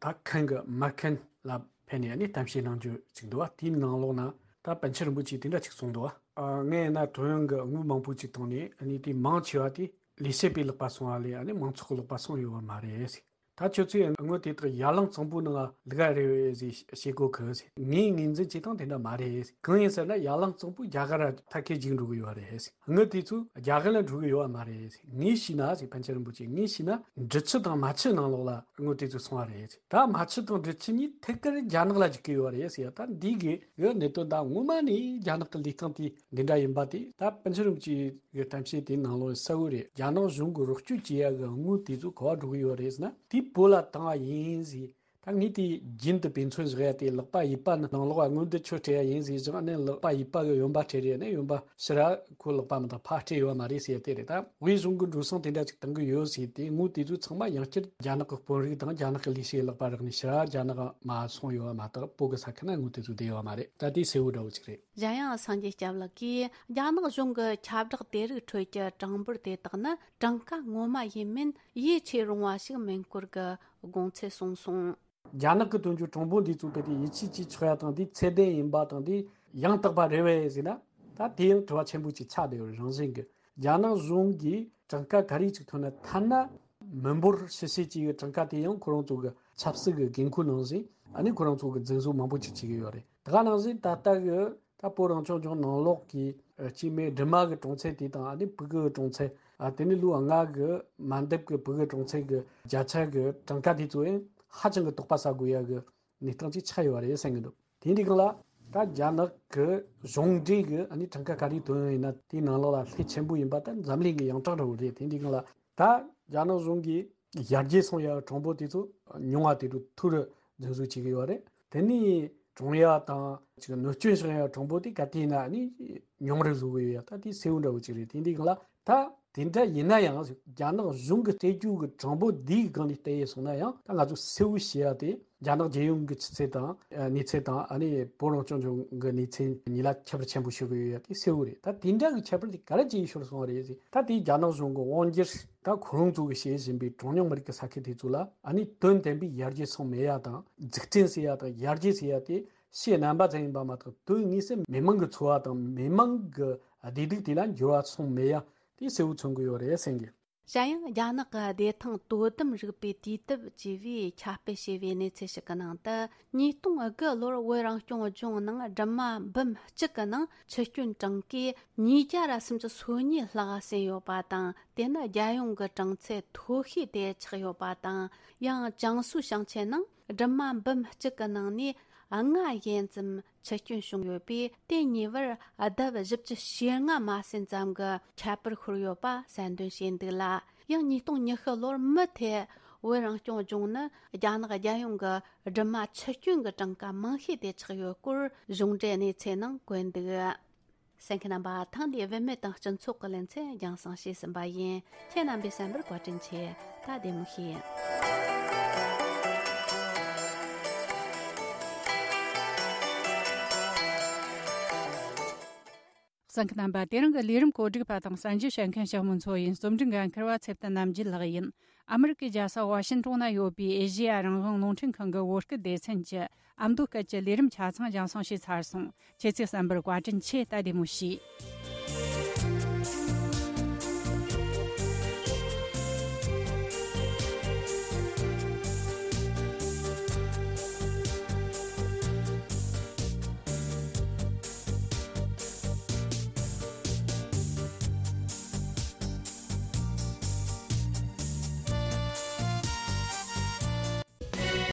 ད་ཁན་གི་མ་ཁན་ལ་ཕེབས་ནས་ནི་གཏམ་བཤད་གནང་རྒྱུ་ཅིག་འདུག་བ། དེའི་ནང་ལོགས་ན་ད་པཎ་ཆེན་རིན་པོ་ཆེ་དེ་འདྲ་ཅིག་གསུངས་འདུག་བ། ཨ། ངས་ན་ཐོ་ཡོང་གི་དངུལ་མང་པོ་ཅིག་བཏང་ནས་ཨ་ནི་དེ་མང་ཆེ་བ་དེ་ལས་བྱེད་པའི་ལག་པ་སོང་བ་ལས་ཨ་ནི་མང་ཚོགས་ཀྱི་ལག་པ་སོང་ཡོད་བ་མ་རེད། ད་ཁྱོད་ཚོས་དངུལ་དེ་དག་ཡར་ལངས་གཙང་པོའི་ནང་ལ་བླུག་ག་རེད་ཟེར་བཤད་གོ་གི་ཟེར། ངས་ངོས་འཛིན་བྱེད་སྟངས་དེ་འདྲ་མ་རེད་ཟེར། གང་ཡིན་ཟེར་ན་ཡར་ལངས་གཙང་པོ་རྒྱ་གར་ཐད་ཀའི་འཇིག་འགྲོ་གི་ཡོད་རེད་ཟེར། དངུལ་དེ་ཚོ་རྒྱ་གར་ལ་འགྲོ་གི་ཡོད་བ་མ་རེད་ཟེར། ངས་ཤེས་ན་ཟེར། པཎ་ཆེན་རིན་པོ་ཆེ་ངས་ཤེས་ན་འབྲི་ཆུ་དང་རྨ་ཆུ་ནང་ལོགས་ལ་དངུལ་དེ་ཚོ་སོང་བ་རེད་ཟེར། ད་རྨ་ཆུ་དང་འབྲི་ཆུ་གཉིས་ཐད་ཀར་རྒྱ་ནག་ལ་འཇུག་གི་ཡོད་རེད་ཟེར། ད་འདི་གི་གནད་དོན་ད་ངོ་མ་ནས་རྒྱ་ནག་གི་ལས་སྟངས་དེ་འདི་འདྲ་ཡིན་པ་དེ་ད་པཎ་ཆེན་རིན་པོ་ཆེ་གི་གཏམ་བཤད་དེའི་ནང་ལོགས་གསལ་བོ་རེད། རྒྱ་ནག་གཞུང་གི་རོགས་སྐྱོར་བྱེད་ཡ་གི་དངུལ་དེ་ཚོ་ག་བ་འགྲོ་གི་ཡོད་རེད་ཟེར་ན་དེ་བོད་ལ་བཏང་བ་ཡིན་ཟེར། ད་ངས་དེ་རྒྱུན་དུ་དཔེ་མཚོན་བཞག་ཡ་དེ་ལག་པ་གཡས་པ་ནི་ནང་ལོགས་ལ་དངུལ་འདི་ཁྱོད་སྤྲད་ཡ་ཡིན་ཟེར་བཞག་ནས་ལག་པ་གཡས་པ་གི་གཡོན་པ་སྤྲད་རེད་ནས་གཡོན་པ་ཕྱི་ར་ཁོ་ལག་པ་མི་འདང་ཕར་སྤྲད་ཡོད་མ་རེད་ཟེར་དེ་རེད། ད་དབུས་གཞུང་གི་འགྲོ་སོང་དེ་འདྲ་ཅིག་བཏང་གི་ཡོད་ཟེར་དེ་དངུལ་དེ་ཚོ་ཚང་མ་ཡང་བསྐྱར་རྒྱ་ནག་གི་དཔོན་རིགས་དང་རྒྱ་ནག་གི་ལས་བྱེད་ལག་པ་རག་ནས་ཕྱི་ར་རྒྱ་ནག་མ་སོང་ཡོད་བ་མ་གཏོགས་བོད་གི་ས་ཁུལ་ན་དངུལ་དེ་ཚོ་བསྡད་ཡོད་མ་རེད། ད་དེ་གསལ་བོ་འདྲ་བོ་ཅིག་རེད། གཞན་ཡང་སངས་རྒྱས་སྐྱབས་ལགས་ཀྱིས་རྒྱ་ནག་གཞུང་གི་ཁྱབ་བསྒྲགས་དེ་རིགས་ཁྲོད་ཀྱི་གྲངས་འབོར་དེ་དག་ནི་གྲངས་ཀ་ངོ་མ་ཡིན་མིན་ཡིད་ཆེས་རུང་བ་ཞིག་མིན་སྐོར་གྱི་དགོངས་ཚུལ་གསུངས་སོང་། རྒྱ་ནག་གི་དོན་གྱི་གྲངས་འབོར་འདི་ཚོ་དེ་དེ་ཡིད་ཆེས་བྱེད་ཆོག་ཡ་དང་དེ་ཚད་ལྡན་ཡིན་པ་དང་དེ་ཡང་དག་པ་རེད་བས་ཟེར་ན་ད་དེ་ཡང་དྲི་བ་ཆེན་པོ་ཅིག་ཆགས་བསྡད་ཡོད་རང་བཞིན་གྱི། རྒྱ་ནག་གཞུང་གིས་གྲངས་ཀ་ག་རེ་ཅིག་ཐོན་ན་ཐ་ན་མི་འབོར་ཕྱི་བཤད་ཅིག་གི་གྲངས་ཀ་དེ་ཡང་ཁོ་རང་ཚོ་གི་ཆབ་སྲིད་ཀྱི་འགན་ཁུར་ནང་བཞིན་ཨ་ནི་ཁོ་རང་ཚོ་གི་འཛིན་བཟུང་མང་པོ་ཅིག་བྱེད་ཀྱི་ཡོད་རེད། དེ་ག་ནང་བཞིན་ད་ལྟ་གི་ད་བོད་རང་སྐྱོང་ལྗོངས་ནང་ལོགས་ཀྱི་ཨ་སྐྱེས་དམན་སྦྲུམ་མ་གི་གྲངས་ཚད་དེ་དང་ཨ་ནི་ཕྲུ་གུ་གི་གྲངས་ཚད། ཨ་དེ་ནི་ལོ་ལྔ་གི་མ་འདབ་གི་ཕྲུ་གུ་གྲངས་ཚད་ཀྱི་བརྒྱ་ཆ་གི་གྲངས་ཀ་དེ་ཚོ་ཡང་ཧ་ཅང་གི་དོགས་པ་ཟ་དགོས་ཡ་གི་གནས་སྟངས་ཅིག་ཆགས་ཡོད་རེད་བསམ་གྱི་འདུག་དེ་འདྲའི་སྒང་ལ་ད་རྒྱ་ནག་གི་གཞུང་འབྲེལ་གི་ཨ་ནི་གྲངས་ཀ་ག་རེ་ཐོན་ཡོད་ན་དེའི་ནང་ལོགས་ལ་ལྷད་ཆེན་པོ་ཡིན་པ་ད་འཛམ་གླིང་གི་ཡོངས་གྲགས་འདྲ་བོ་རེད། དེ་འདྲའི་སྒང་ལ་ད་རྒྱ་ནག་གཞུང་གིས་ཡར་རྒྱས་སོང་ཡ་གྲངས་འབོར་དེ་ཚོ་ཉུང་བ་དེ་ཚོ་ཐུར་འཛིན་བཟུང་བྱེད་ཀྱི་ཡོད་རེད། དེ་ནས་གྲོངས་ཡ་དང་ཅིག་གནོད་སྐྱོན་བྱུང་ཡ་གྲངས་འབོར་དེ་ག་དུས་ཡིན་ན་ཨ་ནི་ཉུང་རུ་བཟོ་གི་ཡོད་ཡ་ད་དེ་གསལ་བོ་འདྲ་བོ་ཅིག་རེད། དེ་འདྲའི་སྒང་ལ་ད་དེ་འདྲ་ཡིན་ན་ཡང་རྒྱ་ནག་གཞུང་གི་སྤྲད་རྒྱུ་གི་གྲངས་འབོར་འདིའི་སྒང་ནས་བལྟས་ཡས་སོང་ན་ཡང་ད་ང་ཚོ་གསལ་བོ་ཤེས་ཡ་དེ་རྒྱ་ནག་རྒྱལ་ཡོངས་ཀྱི་ཆུ་ཚད་དང་ཨ་གནས་ཚད་དང་ཨ་ནི་བོད་རང་སྐྱོང་ལྗོངས་ཀྱི་གནས་ཚད་གཉིས་ལ་ཁྱད་པར་ཆེན་པོ་ཤོར་གི་ཡོད་ཡ་དེ་གསལ་བོ་རེད། ད་དེ་འདྲ་གི་ཁྱད་པར་དེ་ག་རེ་བྱས་ཤོར་སོང་བ་རེད་ཟེར། ད་དེ་རྒྱ་ནག་གཞུང་གི་དབང་སྒྱུར་ད་ཁོ་རང་ཚོ་གི་བྱེད་བཞིན་པའི་གྲངས་ཉུང་མི་རིགས་ཀྱི་ས་ཁུལ་དེ་ཚོ་ལ་ཨ་ནི་དོན་དམ་པའི་ཡར་རྒྱས་སོང་མེད་ཡ་དང་འཛུགས་སྐྲུན་ཟེར་ཡ་དང་ཡར་རྒྱས་ཟེར་ཡ་དེ་ཕྱི་རྣམ་པ་ཙམ་ཡིན་པ་མ་གཏོགས་དོན་དངོས་སུ་མི་མང་གི་འཚོ་བ་དང་མི་མང་གི་བདེ་སྡུག་དེ་ལ་འགྱུར་བ་སོང་མེད་ཡ་དེ་གསལ་བོ་མཚོན་གི་ཡོད་རེད་བསམ་གི། གཞན་ཡང་རྒྱ་ནག་གི་བདེ་ཐང་དོ་དམ་རིག་པའི་དུས་དེབ་ཅེས་པས་ཁྱབ་སྤེལ་བྱས་པའི་གནས་ཚུལ་ཞིག་གི་ནང་དུ། ཉིས་སྟོང་དགུ་ལོར་བོད་རང་སྐྱོང་ལྗོངས་ནང་སྦྲུམ་མ་འབུམ་གཅིག་གི་ནང་འཆི་སྐྱོན་གྲངས་ཀས་ཉིས་བརྒྱ་ར་སུམ་ཅུ་སོ་གཉིས་ལྷག་ཟིན་ཡོད་པ་དང་། དེ་ནི་རྒྱལ་ཡོངས་ཀྱི་གྲངས་ཚད་མཐོ་ཤོས་དེ་ཆགས་ཡོད་པ་དང་། ཡང་ཅང་སུའུ་ཞིང་ཆེན་ནང་སྦྲུམ་མ་འབུམ་གཅིག་གི་ནང་ནས་ལྔ་ཡན་ཙམ་འཆི་སྐྱོན་བྱུང་ཡོད་པས། དེ་ཉེ་བར་ལྡབ་བཞི་བཅུ་ཞེ་ལྔ་མ་ཟིན་ཙམ་གྱི་ཁྱད་པར་ཤོར་ཡོད་པ་གསལ་འདོན་བྱས་འདུག་ལ། ཡང་ཉིས་སྟོང་ཉི་ཤུ་ལོར་མུ་མཐུད་བོད་རང་སྐྱོང་ལྗོངས་ནི་རྒྱ་ནག་རྒྱལ་ཡོངས་ཀྱི་སྦྲུམ་མ་འཆི་སྐྱོན་གྱི་གྲངས་ཀ་མང་ཤོས་དེ་ཆགས་ཡོད་སྐོར་གཞུང་འབྲེལ་གནས་ཚུལ་ནང་བཀོད་འདུག་གསན་མཁན་རྣམ་པ། ཐེངས་འདིའི་བུད་མེད་དང་སྤྱི་ཚོགས་ཀྱི་ལེ་ཚན་རྒྱང་སྲིང་བྱས་ཟིན་པ་ཡིན། ཁྱེད་རྣམ་པས་གསན་པར་བཀའ་དྲིན་ཆེ། ད་བདེ་མོ་བྱོས། གསན་མཁན་རྣམ་པ། དེ་རིང་གི་ལས་རིམ་གོ་སྒྲིག་པ་དང་གསན་རྒྱུ་བྱེད་མཁན་ཞྭ་མོ་མཚོ་ཡིན། རྩོམ་སྒྲིག་འགན་འཁུར་བ་ཚེ་བརྟན་རྣམ་རྒྱལ་ལགས་ཡིན། ཨ་མི་རི་ཀའི་རྒྱལ་ས་ཝ་ཤིན་ཀྲོང་ན་ཡོད་པའི་ཨེ་ཤེ་ཡ་རང་དབང་རླུང་འཕྲིན་ཁང་གི་བོད་སྐད་སྡེ་ཚན་གྱི་ཨ་མདོ་སྐད་ཀྱི་ལས་རིམ་ཆ་ཚང་རྒྱང་སྲིང་བྱས་ཚར་སོང་། ཁྱེད་ཚོས་གསན་པར་བཀའ་དྲིན་ཆེ། ད་བདེ་མོ་བྱོས།